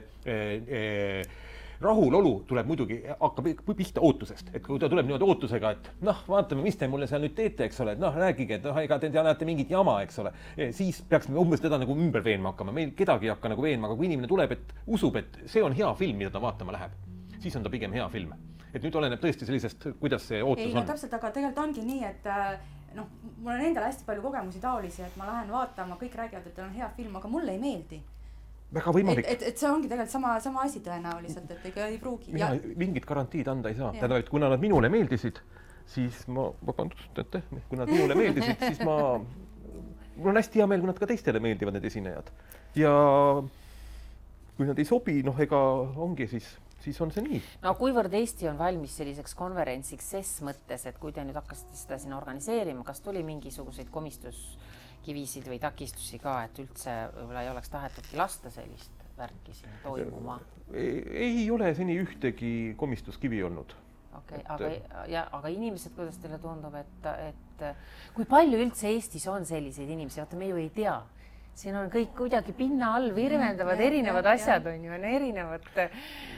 rahulolu tuleb muidugi, hakkab pihta ootusest, et kui ta tuleb niimoodi ootusega, et vaatame, mis te mulle seal nüüd teete, eks ole, et rääkige, et ega te näete mingit jama, eks ole, siis peaks umbes teda nagu ümber veenma hakkama, meil kedagi ei hakka nagu veenma, aga kui inimene tuleb, et usub, et see on hea film, mida ta vaatama läheb, siis on ta pigem hea film. et nüüd oleneb tõesti sellisest, kuidas see ootus ei, on. no täpselt, aga tegelikult ongi nii, et noh, mul on endal hästi palju kogemusi taolisi, et ma lähen vaatama, kõik räägivad, et on hea film, aga mulle ei meeldi. Väga võimalik. Et see ongi tegelikult sama asi tõenäoliselt, et ega ei pruugi. Mina mingit garantiid anda ei saa. Tähendab, et kuna nad minule meeldisid, siis kui nad minule meeldisid, siis mul on hästi hea meel, kui nad ka teistele meeldivad, need esinejad. Ja kui nad ei sobi, ega ongi siis on see nii. No kuivõrd Eesti on valmis selliseks konverentsiks ses mõttes, et kui te nüüd hakkasite seda siin organiseerima, kas tuli mingisuguseid komistuskivisid või takistusi ka, et üldse võib-olla ei oleks tahetudki lasta sellist värki siin toimuma? Ei ole seni ühtegi komistuskivi olnud. Okay, aga inimesed, kuidas teile tundub, et kui palju üldse Eestis on selliseid inimesi, vaata me ju ei tea. Siin on kõik kuidagi pinna all virvendavad erinevad asjad on ju, on erinevad.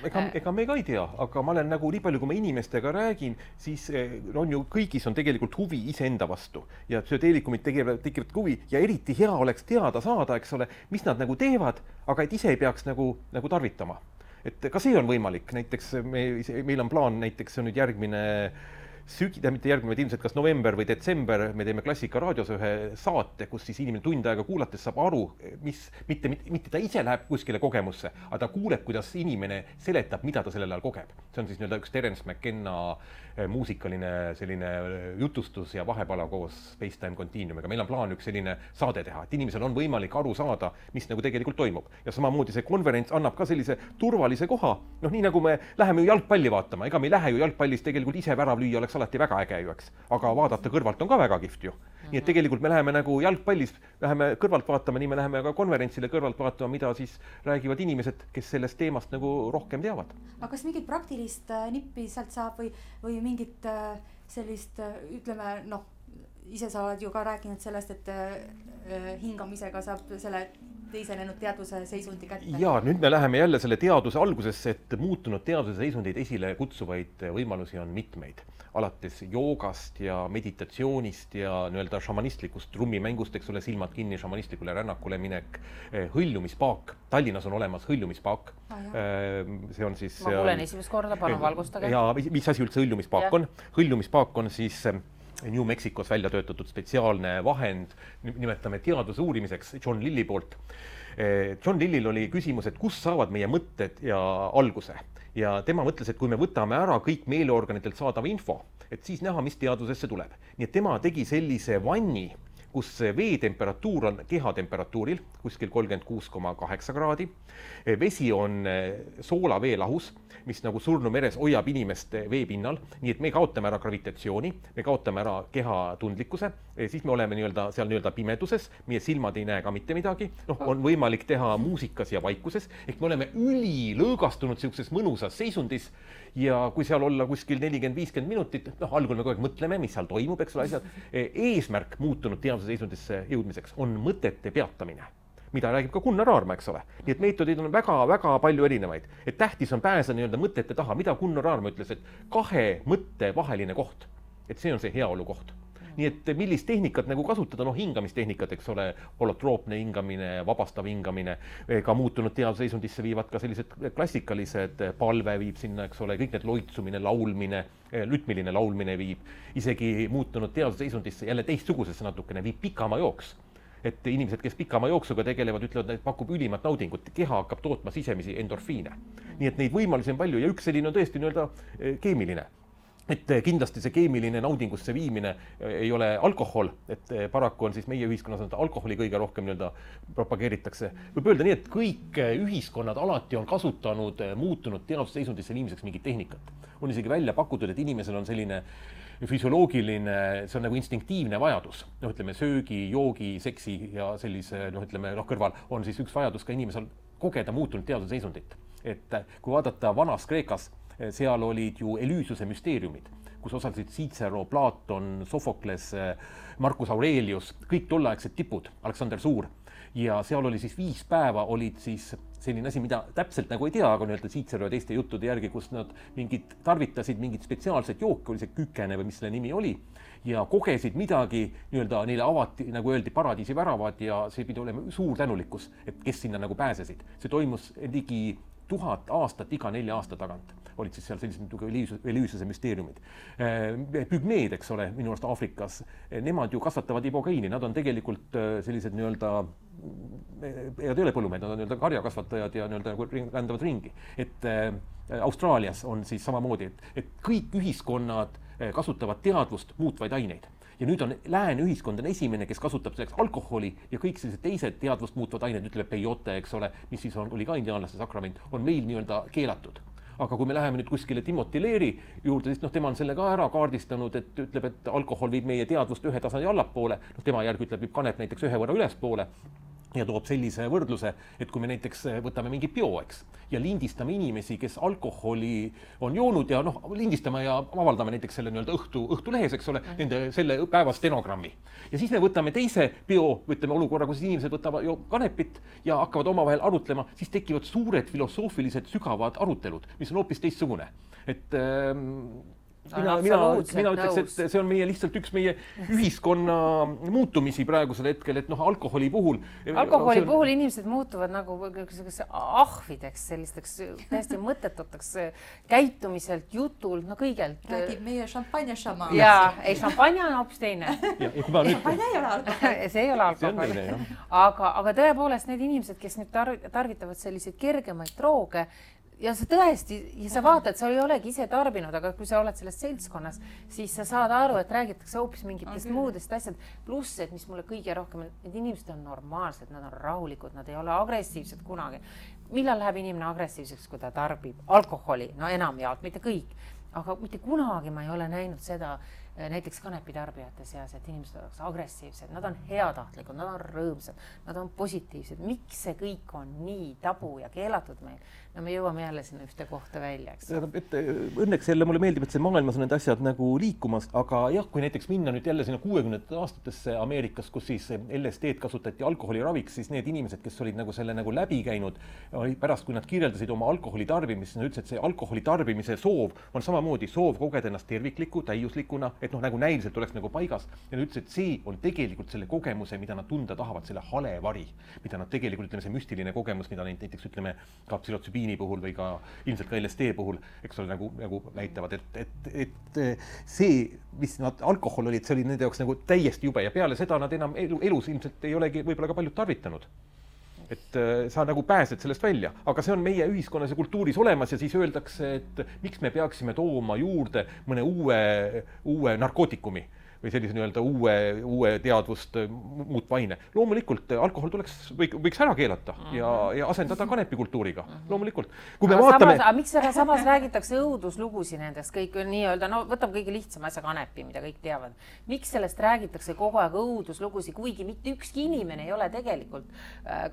Ega me ka ei tea, aga ma olen nagu nii palju, kui ma inimestega räägin, siis on ju kõigis on tegelikult huvi iseenda vastu ja psühhedeelikumid tekivad huvi ja eriti hea oleks teada saada, eks ole, mis nad nagu teevad, aga et ise ei peaks nagu tarvitama. Et ka see on võimalik, näiteks meil on plaan, näiteks see on nüüd järgmine mitte järgmine, vaid ilmselt kas november või detsember me teeme Klassika raadios ühe saate, kus siis inimene tund aega kuulates saab aru, mitte ta ise läheb kuskile kogemusse, aga ta kuuleb, kuidas inimene seletab, mida ta sellel ajal kogeb. See on siis üks Terence McKenna muusikaline selline jutustus ja vahepala koos Space-Time Continuumiga. Meil on plaan üks selline saade teha, et inimesel on võimalik aru saada, mis nagu tegelikult toimub. Ja samamoodi see konverents annab ka sellise turvalise koha. Nii nagu me läheme ju jalgpalli vaatama, ega me ei lähe ju jalgpallis tegelikult ise värav lüüa, oleks alati väga äge ju, eks. Aga vaadata kõrvalt on ka väga kihvt ju. Nii et tegelikult me läheme nagu jalgpallis, läheme kõrvalt vaatama, nii me läheme ka konverentsile kõrvalt vaatama, mida siis räägivad inimesed, kes sellest teemast nagu rohkem teavad. Aga kas mingit praktilist nippi sealt saab või mingit sellist, ütleme, ise sa oled ju ka rääkinud sellest, et hingamisega saab selle teisenenud teadvuse seisundi kätte. Ja nüüd me läheme jälle selle teaduse algusesse, et muutunud teaduse seisundeid esile kutsuvaid võimalusi on mitmeid. Alates joogast ja meditatsioonist ja nii-öelda šamanistlikust trummimängust, eks ole, silmad kinni, šamanistlikule rännakule minek, hõljumispaak. Tallinnas on olemas hõljumispaak. See on siis... Ma kuulen esimest korda, palun valgustage. Ja mis asi üldse hõljumispaak on? Hõljumispaak on siis New Mexicos välja töötatud spetsiaalne vahend, nimetame teaduse uurimiseks John Lilli poolt. John Lillil oli küsimus, et kus saavad meie mõtted ja alguse. Ja tema mõtles, et kui me võtame ära kõik meeleorganitelt saadav info, et siis näha, mis teadusesse tuleb. Nii et tema tegi sellise vanni, kus veetemperatuur on kehatemperatuuril, kuskil 36,8 kraadi. Vesi on soolaveelahus, mis nagu surnu meres hoiab inimest veepinnal, nii et me kaotame ära gravitatsiooni, me kaotame ära keha tundlikkuse, siis me oleme seal pimeduses, meie silmad ei näe ka mitte midagi, on võimalik teha muusikas ja vaikuses, ehk me oleme ülilõõgastunud sellises mõnusas seisundis ja kui seal olla kuskil 40-50 minutit, algul me kogu aeg mõtleme, mis seal toimub, eks ole, asjad. Eesmärk muutunud teaduse seisundisse jõudmiseks on mõtete peatamine, mida räägib ka Gunnar Aarma, eks ole. Nii et meetodid on väga-väga palju erinevaid. Et tähtis on pääse nii-öelda mõtete taha, mida Gunnar Aarma ütles, et 2 mõtte vaheline koht. Et see on see heaolu koht. Nii et millist tehnikat nagu kasutada, hingamistehnikat, eks ole, holotroopne hingamine, vabastav hingamine, ka muutunud teaduse seisundisse viivad ka sellised klassikalised, palve viib sinna, eks ole, kõik need loitsumine, laulmine, lütmiline laulmine viib, isegi muutunud teaduse seisundisse jälle teistsugusesse natukene viib pikama jooks. Et inimesed, kes pikama jooksuga tegelevad, ütlevad, et pakub ülimat naudingut, keha hakkab tootma sisemisi endorfiine. Nii et neid võimalusi on palju ja üks selline on tõesti nii-öelda keemiline. Et kindlasti see keemiline naudingusse viimine ei ole alkohol, et paraku on siis meie ühiskonnas alkoholi kõige rohkem nii-öelda propageeritakse. Võib öelda nii, et kõik ühiskonnad alati on kasutanud muutunud teadusseisundisse viimiseks mingit tehnikat. On isegi välja pakutud, et inimesel on selline füsioloogiline, see on nagu instinktiivne vajadus. Ütleme, söögi, joogi, seksi ja sellise, kõrval on siis üks vajadus ka inimesel kogeda muutunud teaduse seisundit. Et kui vaadata vanas Kreekas, seal olid ju Elüüsuse müsteeriumid, kus osalesid Cicero, Platon, Sofokles, Marcus Aurelius, kõik tolleaegsed tipud, Aleksander Suur. Ja seal oli siis 5 päeva olid siis selline asi, mida täpselt nagu ei tea, aga nii-öelda Cicero ja teiste juttude järgi, kus nad tarvitasid mingit spetsiaalset jooki, oli see kükene või mis selle nimi oli, ja kogesid midagi, nii-öelda neile avati, nagu öeldi, paradiisi väravad ja see pidi olema suur tänulikkus, et kes sinna nagu pääsesid. See toimus ligi 1000 aastat iga 4 aasta tagant. olid siis seal sellised Elüüsuse müsteeriumid. Pügmeed, eks ole, minu arust Aafrikas, nemad ju kasvatavad ibogeiini, nad on tegelikult sellised nii-öelda, ja ei ole põllumehed, nad on nii-öelda karjakasvatajad ja nii-öelda rändavad ringi. Et Austraalias on siis samamoodi, et kõik ühiskonnad kasutavad teadvust muutvaid aineid. Ja nüüd on lääne ühiskond on esimene, kes kasutab selleks alkoholi ja kõik sellised teised teadvust muutvad ained, ütleb peyote, eks ole, mis siis oli ka indiaanlaste sakrament, on meil nii-öelda keelatud. Aga kui me läheme nüüd kuskile Timothy Leary juurde, siis tema on selle ka ära kaardistanud, et ütleb, et alkohol viib meie teadvust ühe tasandi allapoole, tema järgi ütleb, viib kanep näiteks ühe võrra ülespoole ja toob sellise võrdluse, et kui me näiteks võtame mingi bio, eks, ja lindistame inimesi, kes alkoholi on joonud ja lindistame ja avaldame näiteks selle nii-öelda õhtulehes, eks ole, nende selle päeva stenogrammi. Ja siis me võtame teise bio, võtame olukorra, kus inimesed võtavad kanepit ja hakkavad omavahel arutlema, siis tekivad suured filosoofilised sügavad arutelud, mis on hoopis teistsugune. Et mina ütleks, et see on meie lihtsalt üks meie ühiskonna muutumisi praegusel hetkel, et alkoholi puhul inimesed muutuvad nagu ahvideks, sellisteks täiesti mõttetuteks käitumiselt, jutult, kõigelt. Räägib meie šampanja-šama. Jaa, ei, šampanja on hoopis teine. Šampanja ei ole alkohol. See ei ole alkohol. Aga tõepoolest need inimesed, kes nüüd tarvitavad selliseid kergemaid drooge, ja sa tõesti, ja sa vaatad, sa ei olegi ise tarbinud, aga kui sa oled selles seltskonnas, siis sa saad aru, et räägitakse hoopis mingitest muudest asjad. Pluss, et mis mulle kõige rohkem, need inimesed on normaalsed, nad on rahulikud, nad ei ole agressiivsed kunagi. Millal läheb inimene agressiivseks, kui ta tarbib alkoholi? No enamjaolt, mitte kõik. Aga mitte kunagi ma ei ole näinud seda näiteks kanepitarbijate seas, et inimesed oleks agressiivsed, nad on heatahtlikud, nad on rõõmsad, nad on positiivsed. Miks see kõik on nii tabu ja keelatud meil? No me jõuame jälle sinna ühte kohta välja, eks. Õnneks jälle mulle meeldib, et see maailmas on need asjad nagu liikumas, aga jah, kui näiteks minna nüüd jälle sinna 60. aastatesse Ameerikas, kus siis LSD-d kasutati alkoholiraviks, siis need inimesed, kes olid nagu selle nagu läbi käinud, pärast kui nad kirjeldasid oma alkoholi tarbimist, nad ütlesid, et see alkoholi tarbimise soov on samamoodi soov kogeda ennast tervikliku, täiuslikuna, et nagu näiliselt oleks nagu paigas. Ja nad ütlesid, et see on tegelikult selle kogemuse, mida nad tunda tahavad, selle hale vari, mida nad tegelikult, ütleme, see müstiline kogemus, mida näiteks, ütleme, ka psühhotsübiini puhul või ka ilmselt ka LSD puhul, eks ole, nagu näitavad, et see, mis nad alkohol olid, see oli nende jaoks nagu täiesti jube ja peale seda nad enam elus ilmselt ei olegi võib-olla ka paljud tarvitanud. Et sa nagu pääsed sellest välja, aga see on meie ühiskonnas ja kultuuris olemas ja siis öeldakse, et miks me peaksime tooma juurde mõne uue narkootikumi või sellise nii-öelda uue teadvust muutva aine. Loomulikult alkohol võiks ära keelata ja asendada kanepikultuuriga. Loomulikult. Kui me vaatame... Miks samas räägitakse õuduslugusi nendest kõik nii-öelda, võtame kõige lihtsam asja kanepi, mida kõik teavad. Miks sellest räägitakse kogu aeg õuduslugusi, kuigi mitte ükski inimene ei ole tegelikult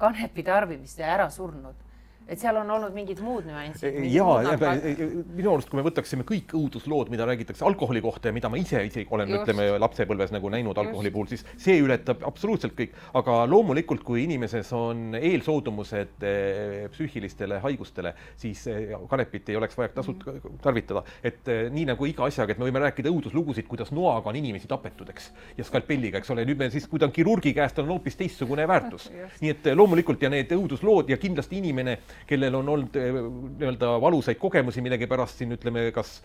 kanepi tarbimist ja ära surnud? Et seal on olnud mingid muud nüansid. Minu arust, kui me võtaksime kõik õuduslood, mida räägitakse alkoholi kohta ja mida ma ise olen, ütleme, lapsepõlves nagu näinud alkoholi puhul, siis see ületab absoluutselt kõik. Aga loomulikult, kui inimeses on eelsoodumused psüühilistele haigustele, siis kanepit ei oleks vaja tarvitada. Et nii nagu iga asjaga, et me võime rääkida õuduslugusid, kuidas noaga on inimesi tapetud, eks, ja skalpelliga, eks ole. Nüüd me siis, kui ta on kirurgi käest, on hoopis teistsugune väärtus. Nii et loomulikult ja need õuduslood ja kindlasti inimene, kellel on olnud nii-öelda valusaid kogemusi millegi pärast siin, ütleme, kas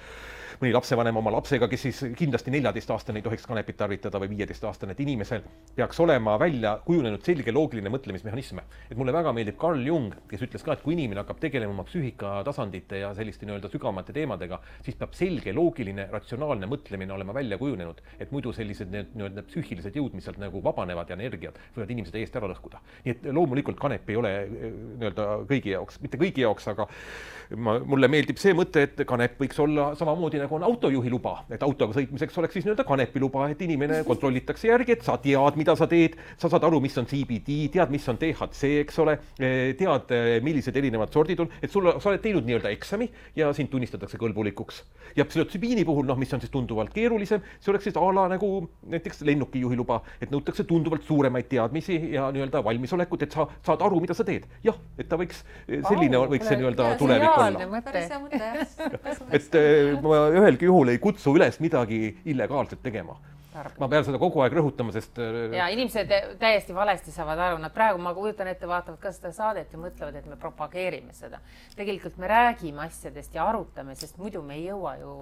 mõni lapsevanem oma lapsega, kes siis kindlasti 14-aastane ei tohiks kanepit tarvitada või 15-aastane, et inimesel peaks olema välja kujunenud selge loogiline mõtlemismehhanisme. Et mulle väga meeldib Carl Jung, kes ütles ka, et kui inimene hakkab tegelema oma psüühikatasandite ja selliste nii-öelda sügavamate teemadega, siis peab selge loogiline, ratsionaalne mõtlemine olema välja kujunenud, et muidu sellised nii-öelda psüühilised jõud, mis sealt nagu vabanevad ja energiat, võivad inimesed täiesti ära lõhkuda. Nii et loomulikult kanep ei ole nii-öelda kõigi jaoks, mitte kõigi jaoks, aga mulle meeldib see mõte, et kanep võiks olla samamoodi nagu on autojuhi luba, et autoga sõitmiseks oleks siis nii-öelda kanepiluba, et inimene kontrollitakse järgi, et sa tead, mida sa teed, sa saad aru, mis on CBD, tead, mis on THC, eks ole, tead, millised erinevad sordid on, et sa oled teinud nii-öelda eksami ja sind tunnistatakse kõlbulikuks. Ja psühhotsübiini puhul, mis on siis tunduvalt keerulisem, see oleks siis ala nagu näiteks lennukijuhi luba, et nõutakse tunduvalt suuremaid teadmisi ja nii-öelda valmisolekut, et sa saad aru, mida sa teed. Jah, et ta võiks selline võiks see nii-öelda tulevik olla. Et ma ühelgi juhul ei kutsu üles midagi illegaalselt tegema. ma pean seda kogu aeg rõhutama, sest ja inimesed täiesti valesti saavad aru, nad praegu, ma kujutan ette, vaatavad ka seda saadet ja mõtlevad, et me propageerime seda. Tegelikult me räägime asjadest ja arutame, sest muidu me ei jõua ju,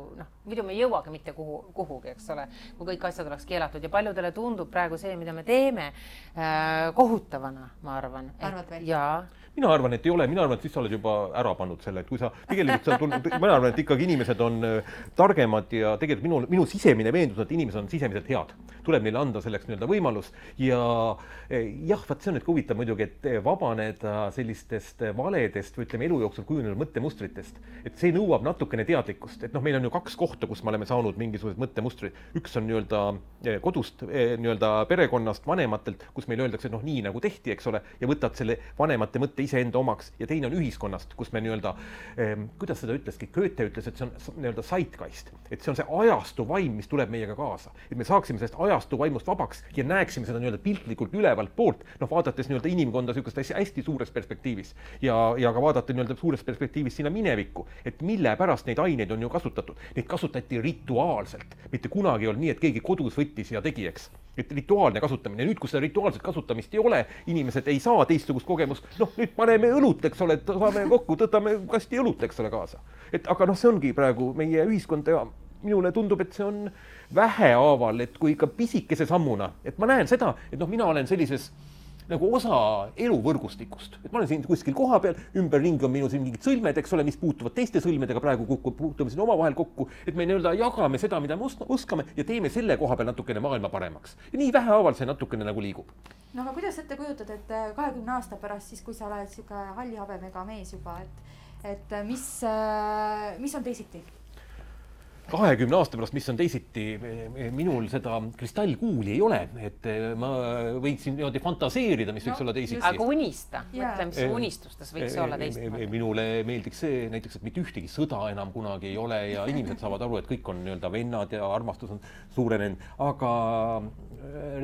muidu me ei jõuagi mitte kuhugi, eks ole, kui kõik asjad oleks keelatud ja paljudele tundub praegu see, mida me teeme kohutavana, ma arvan. Arvad veel? Jaa. Mina arvan, et ei ole, mina arvan, et siis sa oled juba ära pannud selle, et kui sa tegelikult mina arvan, et ikkagi inimesed on targemad ja tegelikult minu sisemine veendus, et inimesed on sisemiselt head. Tuleb neile anda selleks võimalus ja jah, vaat see on nüüd huvitav muidugi, et vabaneda sellistest valedest või ütleme elu jooksul kujunenud mõttemustritest, et see nõuab natukene teadlikkust, et meil on ju 2 kohta, kus me oleme saanud mingisugused mõttemustrid. Üks on kodust, perekonnast, vanematelt, kus meil öeldakse, et nii nagu tehti, eks ole, ja võtad selle vanemate mõtte iseenda omaks ja teine on ühiskonnast, kus me kuidas seda ütleski, Goethe ütles, et see on zeitgeist, et see on see ajastu vaim, mis tuleb meiega kaasa, et me saaksime sellest ajastu vaimust vabaks ja näeksime seda piltlikult ülevalt poolt, vaadates inimkonda sükust hästi suures perspektiivis ja ka vaadata suures perspektiivis sinna minevikku, et mille pärast neid aineid on ju kasutatud. Neid kasutati rituaalselt, mitte kunagi ei olnud nii, et keegi kodus võttis ja tegi, eks. Et rituaalne kasutamine. Nüüd, kui seda rituaalset kasutamist ei ole, inimesed ei saa teistsugust kogemust, nüüd paneme õlut, eks ole, saame kokku, tõtame kasti õlut, eks ole, kaasa. Aga see ongi praegu meie ühiskond ja minule tundub, et see on vähehaaval, et kui ikka pisikese sammuna, et ma näen seda, et mina olen sellises osa eluvõrgustikust. Et ma olen siin kuskil koha peal, ümberringi on minu siin mingid sõlmed, eks ole, mis puutuvad teiste sõlmedega praegu puutume siin omavahel kokku, et me jagame seda, mida me oskame ja teeme selle koha peal natukene maailma paremaks. Ja nii vähehaaval see natukene liigub. Aga kuidas ette kujutad, et 20 aasta pärast, siis kui sa oled siuke halli habemega mees juba, et mis on teisiti? 20 aasta pärast, mis on teisiti, minul seda kristallkuuli ei ole, et ma võiksin fantaseerida, mis võiks olla teisiti. Aga unista, mõtle, mis unistustes võiks olla teisiti. Minule meeldiks see näiteks, et mitte ühtegi sõda enam kunagi ei ole ja inimesed saavad aru, et kõik on vennad ja armastus on suurenenud, aga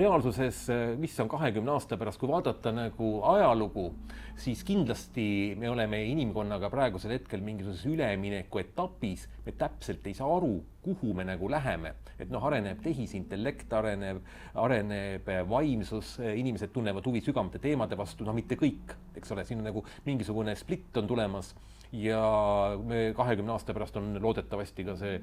reaalsuses, mis on 20 aasta pärast, kui vaadata ajalugu, siis kindlasti me oleme inimkonnaga praegusel hetkel mingisuguses ülemineku etapis, me täpselt ei saa aru, kuhu me läheme. Et areneb tehisintellekt, areneb vaimsus, inimesed tunnevad huvi sügavamate teemade vastu, mitte kõik, eks ole, siin on mingisugune split on tulemas ja 20 aasta pärast on loodetavasti ka see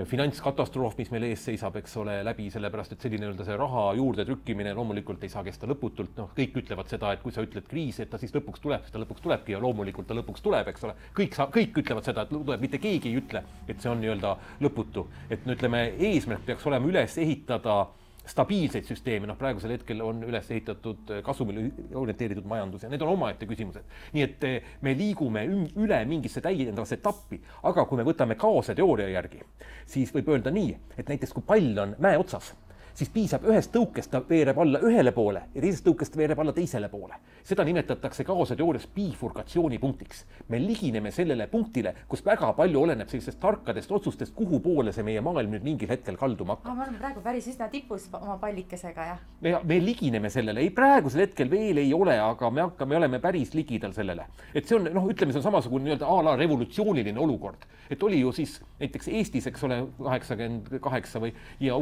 finantskatastroof, mis meil ees seisab, eks ole, läbi sellepärast, et selline see raha juurde trükkimine loomulikult ei saa kesta lõputult. Kõik ütlevad seda, et kui sa ütled kriis, et ta siis lõpuks tuleb, siis ta lõpuks tulebki ja loomulikult ta lõpuks tuleb, eks ole. Kõik ütlevad seda, et tuleb, mitte keegi ei ütle, et see on lõputu. Et ütleme, eesmärk peaks olema üles ehitada stabiilseid süsteeme, praegusel hetkel on üles ehitatud kasumile orienteeritud majandus ja need on omaette küsimused. Nii et me liigume üle mingisse täiendavasse etappi, aga kui me võtame kaose teooria järgi, siis võib öelda nii, et näiteks kui pall on mäe otsas, siis piisab ühest tõukest, ta veereb alla ühele poole ja teisest tõukest veereb alla teisele poole. Seda nimetatakse kaose teoorias bifurkatsioonipunktiks. Me ligineme sellele punktile, kus väga palju oleneb sellistest tarkadest otsustest, kuhu poole see meie maailm nüüd mingil hetkel kalduma hakkab. Me oleme praegu päris üsna tipus oma pallikesega, jah? Me ligineme sellele. Ei, praegusel hetkel veel ei ole, aga me oleme päris ligidal sellele. Et see on, ütleme, see on samasugune a la revolutsiooniline olukord. Et oli ju siis näiteks Eestis, eks ole, 88 ja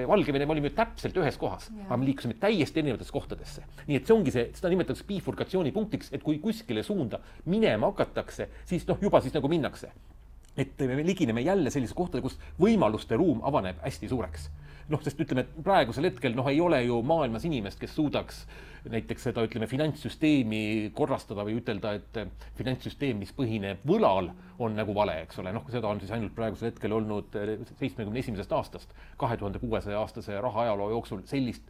Valgevene olime täpselt ühes kohas, aga me liikusime täiesti erinevatesse kohtadesse. Nii et see ongi seda nimetatakse bifurkatsioonipunktiks, et kui kuskile suunda minema hakatakse, siis juba siis minnakse. Et me ligineme jälle sellise kohtade, kus võimaluste ruum avaneb hästi suureks. Sest ütleme, et praegusel hetkel ei ole ju maailmas inimest, kes suudaks näiteks seda, finantssüsteemi korrastada või ütelda, et finantssüsteem, mis põhineb võlal, on vale, eks ole. Seda on siis ainult praegusel hetkel olnud 71. aastast, 2600 aastase rahaajaloo jooksul sellist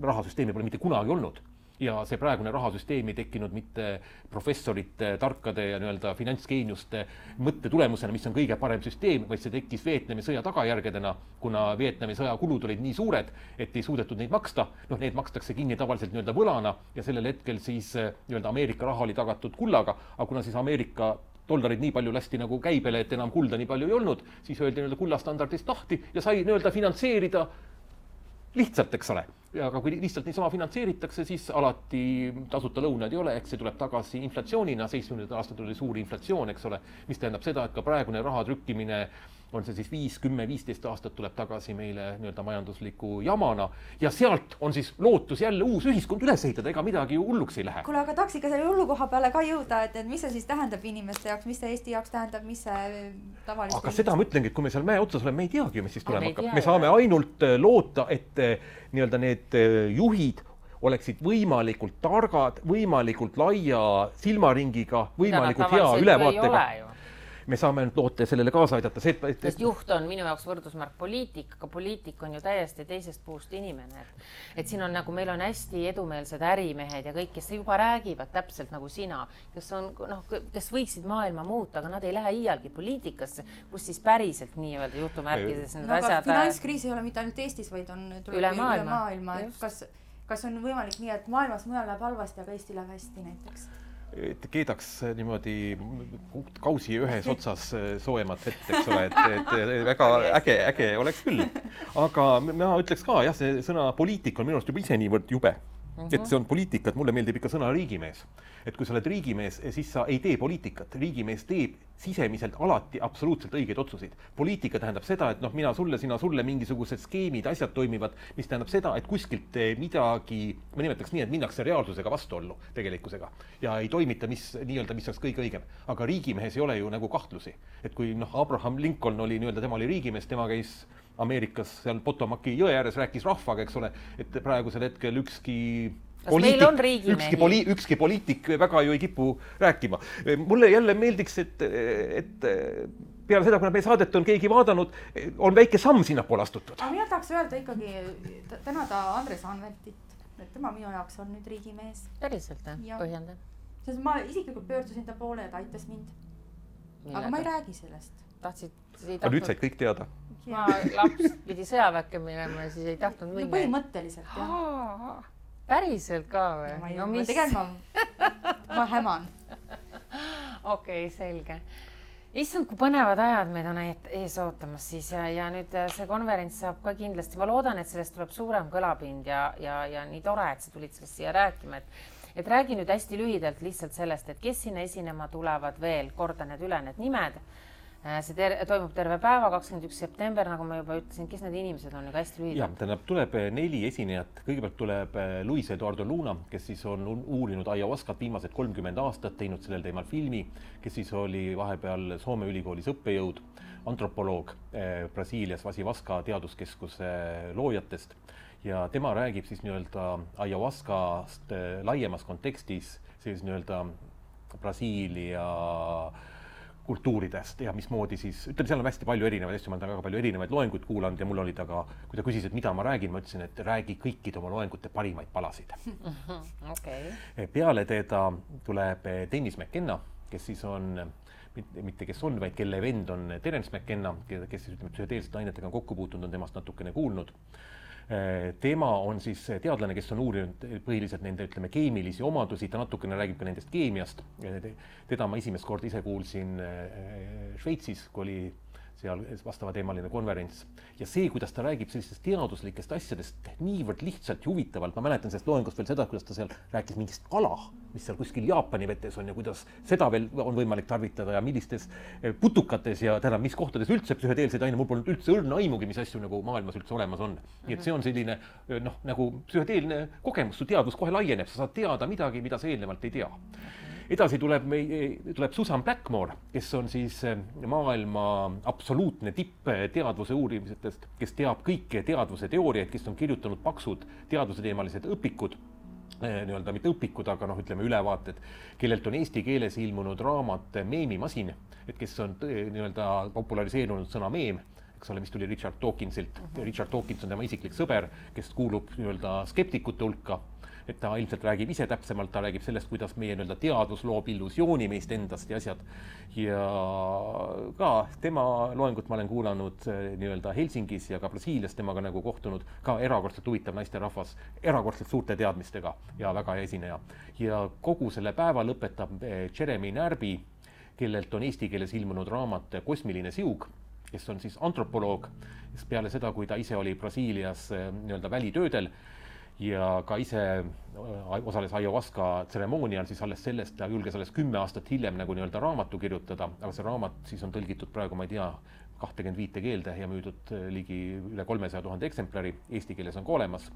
rahasüsteemi pole mitte kunagi olnud. Ja see praegune rahasüsteemi tekkinud mitte professorite, tarkade ja finantsgeeniuste mõtte tulemusena, mis on kõige parem süsteem, vaid see tekkis Vietnami sõja tagajärgedena, kuna Vietnami sõja kulud olid nii suured, et ei suudetud neid maksta. Need makstakse kinni tavaliselt võlana ja sellel hetkel siis Ameerika raha oli tagatud kullaga, aga kuna siis Ameerika dollarid nii palju lasti käibele, et enam kulda nii palju ei olnud, siis öeldi kullastandardist lahti ja sai finantseerida lihtsalt, eks ole. aga kui lihtsalt niisama finantseeritakse, siis alati tasuta lõunad ei ole, eks see tuleb tagasi inflatsioonina, 70. aastatel oli suur inflatsioon, eks ole, mis tähendab seda, et ka praegune raha trükkimine on see siis 5, 10, 15 aastat tuleb tagasi meile nii-öelda majandusliku jamana ja sealt on siis lootus jälle uus ühiskond üles ehitada, ega midagi ju hulluks ei lähe. Kuule, aga tahaks ikka selle hullukoha peale ka jõuda, et mis see siis tähendab inimeste jaoks, mis see Eesti jaoks tähendab, mis see tavalist... Aga seda ma ütlengi, et kui me seal mäe otsas oleme, me ei teagi, mis siis tulema hakkab. Me saame ainult loota, et nii-öelda need juhid oleksid võimalikult targad, võimalikult laia silmaringiga, võimalikult hea ülevaatega. Me saame ainult loota ja sellele kaasa aidata. Sest juht on minu jaoks võrdusmärk poliitik, aga poliitik on ju täiesti teisest puust inimene. Et siin on nagu, meil on hästi edumeelsed ärimehed ja kõik, kes juba räägivad täpselt nagu sina, kes võiksid maailma muuta, aga nad ei lähe iialgi poliitikasse, kus siis päriselt nii-öelda jutumärkides need asjad... Finantskriis ei ole mitte ainult Eestis, vaid on üle maailma. Kas on võimalik nii, et maailmas mujal läheb halvasti, aga Eesti läheb hästi näiteks? Et keedaks niimoodi kausi ühes otsas soojemat vett, eks ole, et väga äge oleks küll. Aga ma ütleks ka, jah, see sõna poliitik on minu arust juba ise niivõrd jube. Et see on poliitika, et mulle meeldib ikka sõna riigimees. Et kui sa oled riigimees, siis sa ei tee poliitikat. Riigimees teeb sisemiselt alati absoluutselt õigeid otsuseid. Poliitika tähendab seda, et mina sulle, sina sulle mingisugused skeemid, asjad toimivad, mis tähendab seda, et kuskilt midagi, ma nimetaks nii, et minnakse reaalsusega vastuollu tegelikkusega ja ei toimita, mis oleks kõige õigem. Aga riigimehes ei ole ju nagu kahtlusi. Et kui Abraham Lincoln oli nii-öelda, tema oli riigimees, tema käis Ameerikas seal Potomaki jõe ääres, rääkis rahvaga, eks ole, et praegusel hetkel ükski poliitik väga ju ei kipu rääkima. Mulle jälle meeldiks, et peale seda, kui meie saadet on keegi vaadanud, on väike samm sinnapoole astutud. Aga mina tahaks öelda ikkagi tänada Andres Anveltit, et tema minu jaoks on nüüd riigimees. Päriselt, põhjenda. Sest ma isiklikult pöördusin ta poole ja ta aitas mind. Aga ma ei räägi sellest. Aga nüüd said kõik teada. Ma laps pidi sõjaväkke minema ja siis ei tahtnud minna. Põhimõtteliselt, jah. Päriselt ka või? Ma häman. Okei, selge. Issand, kui põnevad ajad meid on ees ootamas siis ja nüüd see konverents saab ka kindlasti. Ma loodan, et sellest tuleb suurem kõlapind ja nii tore, et sa tulid sellest siia rääkima. Et räägi nüüd hästi lühidalt lihtsalt sellest, et kes sinna esinema tulevad veel, korda need üle need nimed. See toimub terve päeva, 21. september, nagu ma juba ütlesin, kes need inimesed on juba hästi lühidalt? Jah, tähendab, tuleb 4 esinejat. Kõigepealt tuleb Luis Eduardo Luna, kes siis on uurinud ayahuascat viimased 30 aastat, teinud sellel teemal filmi, kes siis oli vahepeal Soome ülikoolis õppejõud, antropoloog Brasiilias Vasivaska teaduskeskuse loojatest. Ja tema räägib siis nii-öelda ayahuascast laiemas kontekstis, siis nii-öelda Brasiilia kultuuridest ja mismoodi siis, ütleme, seal on hästi palju erinevaid asju, ma olen väga palju erinevaid loenguid kuulanud ja mul olid, aga kui ta küsis, et mida ma räägin, ma ütlesin, et räägi kõikide oma loengute parimaid palasid. Okay. Peale teda tuleb Dennis McKenna, kes siis on, mitte kes on, vaid kelle vend on Terence McKenna, kes siis psühhedeelsete ainetega on kokku puutunud, on temast natukene kuulnud. Tema on siis teadlane, kes on uurinud põhiliselt nende, ütleme, keemilisi omadusi, ta natukene räägib ka nendest keemiast. Teda ma esimest kord ise kuulsin Šveitsis, kui oli seal vastava teemaline konverents. Ja see, kuidas ta räägib sellistest teaduslikest asjadest niivõrd lihtsalt ja huvitavalt, ma mäletan sellest loengust veel seda, kuidas ta seal rääkis mingist kala, mis seal kuskil Jaapani vetes on ja kuidas seda veel on võimalik tarvitada ja millistes putukates ja tähendab, mis kohtades üldse psühhedeelseid aine, mul polnud üldse õrna aimugi, mis asju nagu maailmas üldse olemas on. Nii et see on selline nagu psühhedeelne kogemus, su teadvus kohe laieneb, sa saad teada midagi, mida sa eelnevalt ei tea. Edasi tuleb Susan Blackmore, kes on siis maailma absoluutne tipp teadvuse uurimisest, kes teab kõiki teadvuse teooriaid, kes on kirjutanud paksud teadvuse teemalised õpikud, nii-öelda mitte õpikud, aga ütleme ülevaated, kellelt on eesti keeles ilmunud raamat Meemimasin, et kes on nii-öelda populariseerunud sõna meem, eks ole, mis tuli Richard Dawkinsilt. Richard Dawkins on tema isiklik sõber, kes kuulub nii-öelda skeptikute hulka. Et ta ilmselt räägib ise täpsemalt, ta räägib sellest, kuidas meie nii-öelda teadvus loob illusiooni meist endast ja asjad. Ja ka tema loengut ma olen kuulanud nii-öelda Helsingis ja ka Brasiilias temaga nagu kohtunud, ka erakordselt huvitav naisterahvas, erakordselt suurte teadmistega ja väga hea esineja. Ja kogu selle päeva lõpetab Jeremy Närbi, kellelt on eesti keeles ilmunud raamat Kosmiline siug, kes on siis antropoloog, peale seda, kui ta ise oli Brasiilias nii-öelda välitöödel. ja ka ise osales ayahuasca tseremoonial, siis alles sellest ta julges alles 10 aastat hiljem nagu nii-öelda raamatu kirjutada, aga see raamat siis on tõlgitud praegu, ma ei tea, 25 keelde ja müüdud ligi üle 300 000 eksemplari, eesti keeles on ka olemas.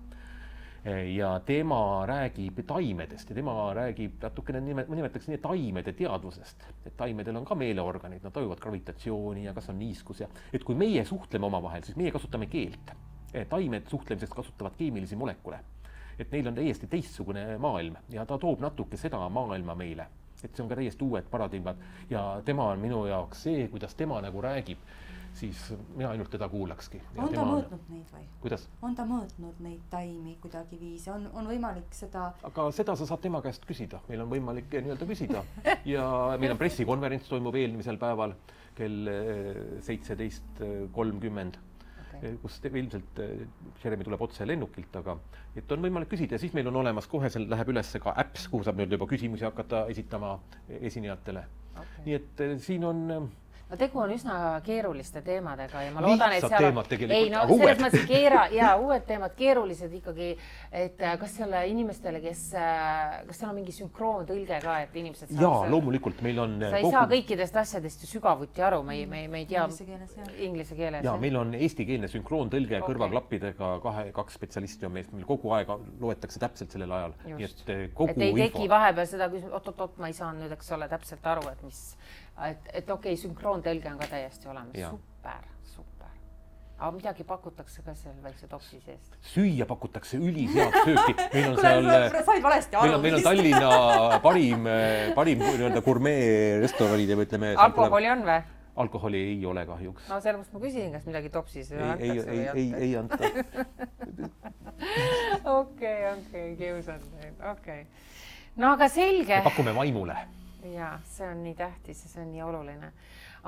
Ja tema räägib taimedest ja tema räägib natukene, ma nimetaks nii, taimede teadvusest, et taimedel on ka meeleorganid, nad tajuvad gravitatsiooni ja kas on niiskus ja et kui meie suhtleme omavahel, siis meie kasutame keelt. Taimed suhtlemiseks kasutavad keemilisi molekule, et neil on täiesti teistsugune maailm ja ta toob natuke seda maailma meile, et see on ka täiesti uued paradigmad ja tema on minu jaoks see, kuidas tema nagu räägib, siis mina ainult teda kuulakski. On ta mõõtnud neid või? Kuidas? On ta mõõtnud neid taimi kuidagi viisi? On võimalik seda... Aga seda sa saad tema käest küsida. Meil on võimalik nii-öelda küsida. Ja meil on pressikonverents toimub eelmisel päeval kell 17.30, kus ilmselt Jeremy tuleb otse lennukilt, aga et on võimalik küsida ja siis meil on olemas kohe, seal läheb üles ka apps, kuhu saab nüüd juba küsimusi hakata esitama esinejatele. Nii et siin on... No tegu on üsna keeruliste teemadega ja ma loodan, et seal on... Ei, no selles mõttes uued teemad, keerulised ikkagi, et kas seal inimestele, kas seal on mingi sünkroontõlge ka, et inimesed saavad... Jaa, loomulikult meil on... Sa ei saa kõikidest asjadest ju sügavuti aru, me ei tea... Inglise keeles. Jaa, meil on eestikeelne sünkroontõlge kõrvaklappidega, kaks spetsialisti on meil kogu aeg loetakse täpselt sellel ajal. Just. Et ei teki vahepeal seda küsimust, oot, ma ei saa nüüd, eks ole, täpselt aru, et mis... Et okei, sünkroontõlge on ka täiesti olemas. Super. Aga midagi pakutakse ka seal väikse topsi seest? Süüa pakutakse ülisead sööki. Meil on Tallinna parim gurmee restoranid ja me ütleme... Alkoholi on või? Alkoholi ei ole kahjuks. No sellepärast ma küsin, kas midagi topsis antakse või ei anta. Okei, kiusan neid. No aga selge. Me pakume vaimule. Jaa, see on nii tähtis ja see on nii oluline.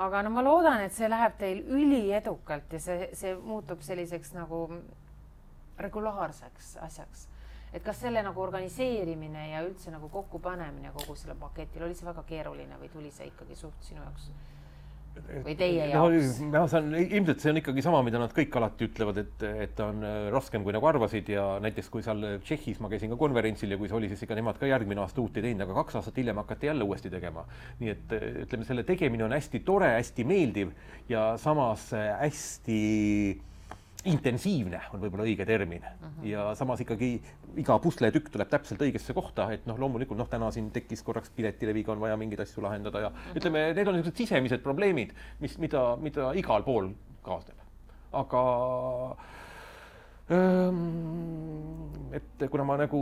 Aga no ma loodan, et see läheb teil üliedukalt ja see muutub selliseks nagu regulaarseks asjaks. Et kas selle nagu organiseerimine ja üldse nagu kokkupanemine kogu selle paketil, oli see väga keeruline või tuli see ikkagi suht sinu jaoks? Või teie jaoks? Ilmselt see on ikkagi sama, mida nad kõik alati ütlevad, et on raskem, kui nagu arvasid ja näiteks kui seal Tšehhis ma käisin ka konverentsil ja kui see oli, siis ikka nemad ka järgmine aasta uut ei teinud, aga 2 aastat hiljem hakati jälle uuesti tegema. Nii et ütleme, selle tegemine on hästi tore, hästi meeldiv ja samas hästi intensiivne on võib-olla õige termin. Ja samas ikkagi iga pusletükk tuleb täpselt õigesse kohta, et loomulikult täna siin tekkis korraks piletileviga on vaja mingeid asju lahendada ja ütleme, need on niisugused sisemised probleemid, mida igal pool kaasneb. Aga et kuna ma nagu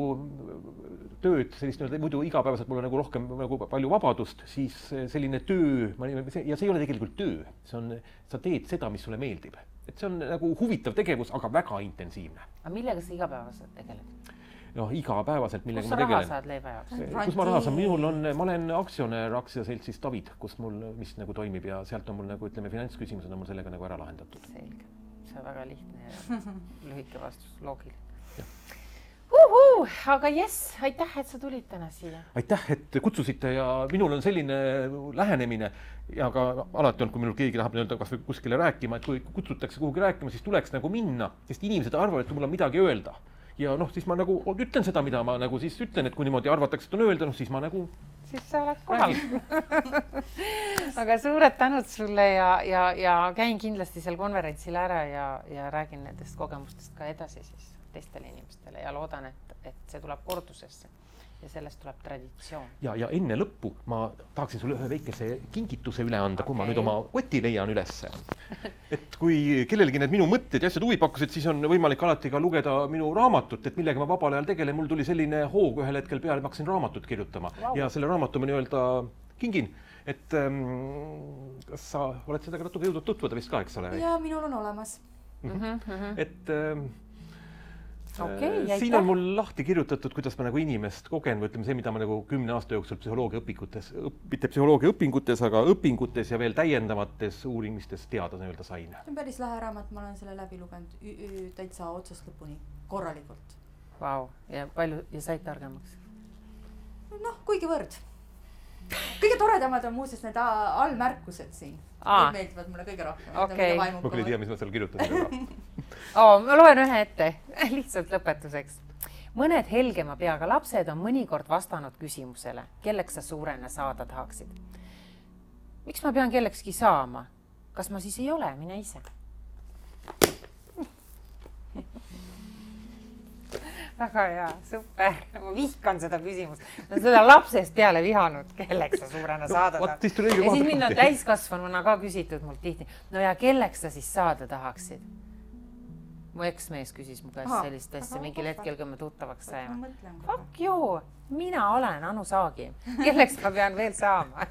tööd sellist muidu igapäevaselt mul on nagu rohkem nagu palju vabadust, siis selline töö, ja see ei ole tegelikult töö, sa teed seda, mis sulle meeldib. Et see on nagu huvitav tegevus, aga väga intensiivne. Aga millega sa igapäevaselt tegeled? Igapäevaselt, millega ma tegelen. Kus sa raha saad leiva jaoks? Kus ma raha saan? Ma olen aktsionär aktsiaseltsis David, kus mul mis nagu toimib ja sealt on mul nagu ütleme finantsküsimused on mul sellega nagu ära lahendatud. Selge. See on väga lihtne ja lühike vastus, loogiline. Aga aitäh, et sa tulid täna siia. Aitäh, et kutsusite ja minul on selline lähenemine ja ka alati on, kui minul keegi tahab kas või kuskile rääkima, et kui kutsutakse kuhugi rääkima, siis tuleks nagu minna, sest inimesed arvavad, et mul on midagi öelda. Ja siis ma nagu ütlen seda, mida ma nagu siis ütlen, et kui niimoodi arvatakse, et on öelda, siis ma nagu... Siis sa oled kohal. Aga suured tänud sulle ja käin kindlasti seal konverentsil ära ja räägin nendest kogemustest ka edasi siis teistele inimestele ja loodan, et see tuleb kordusesse ja sellest tuleb traditsioon. Ja enne lõppu ma tahaksin sulle ühe väikese kingituse üle anda, kui ma nüüd oma koti leian ülesse. Et kui kellelgi need minu mõtted ja asjad huvi pakkusid, siis on võimalik alati ka lugeda minu raamatut, et millega ma vabal ajal tegelen. Mul tuli selline hoog ühel hetkel peale, ma hakkasin raamatut kirjutama ja selle raamatu ma nii-öelda kingin. Et kas sa oled seda natuke jõudnud tutvuda vist ka, eks ole? Ja minul on olemas. Et... siin on mul lahti kirjutatud, kuidas ma nagu inimest kogen või ütleme see, mida ma nagu 10 aasta jooksul mitte psühholoogia õpingutes, aga õpingutes ja veel täiendavates uurimistes teada nii-öelda sain. See on päris lahe raamat, ma olen selle läbi lugenud täitsa otsast lõpuni korralikult. Vau, ja palju ja said targemaks? Kuigi võrd. Kõige toredamad on muuseas need allmärkused siin. Need meeldivad mulle kõige rohkem. Ma küll ei tea, mis ma seal kirjutasin. Ma loen ühe ette, lihtsalt lõpetuseks. mõned helgema peaga lapsed on mõnikord vastanud küsimusele, kelleks sa suurena saada tahaksid. Miks ma pean kellekski saama? Kas ma siis ei ole, mine ise? Väga hea, super. Ma vihkan seda küsimust. Ma seda lapsest peale vihanud, kelleks sa suurena saada tahaksid. Ja siis mind on täiskasvanuna ka küsitud mult tihti. No ja kelleks sa siis saada tahaksid? Mu eksmees küsis mu käest sellist asja mingil hetkel, kui me tuttavaks saime. Fuck you, mina olen Anu Saagim. Kelleks ma pean veel saama?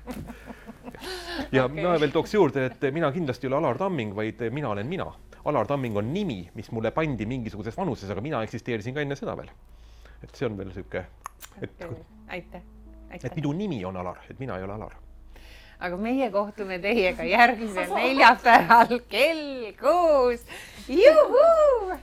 Ja mina veel tooks juurde, et mina kindlasti ei ole Alar Tamming, vaid mina olen mina. Alar Tamming on nimi, mis mulle pandi mingisuguses vanuses, aga mina eksisteerisin ka enne seda veel. Et see on veel süke... Aitäh. Et minu nimi on Alar, et mina ei ole Alar. Aga meie kohtume teiega järgmisel neljapäeval kell 6. Juhuu!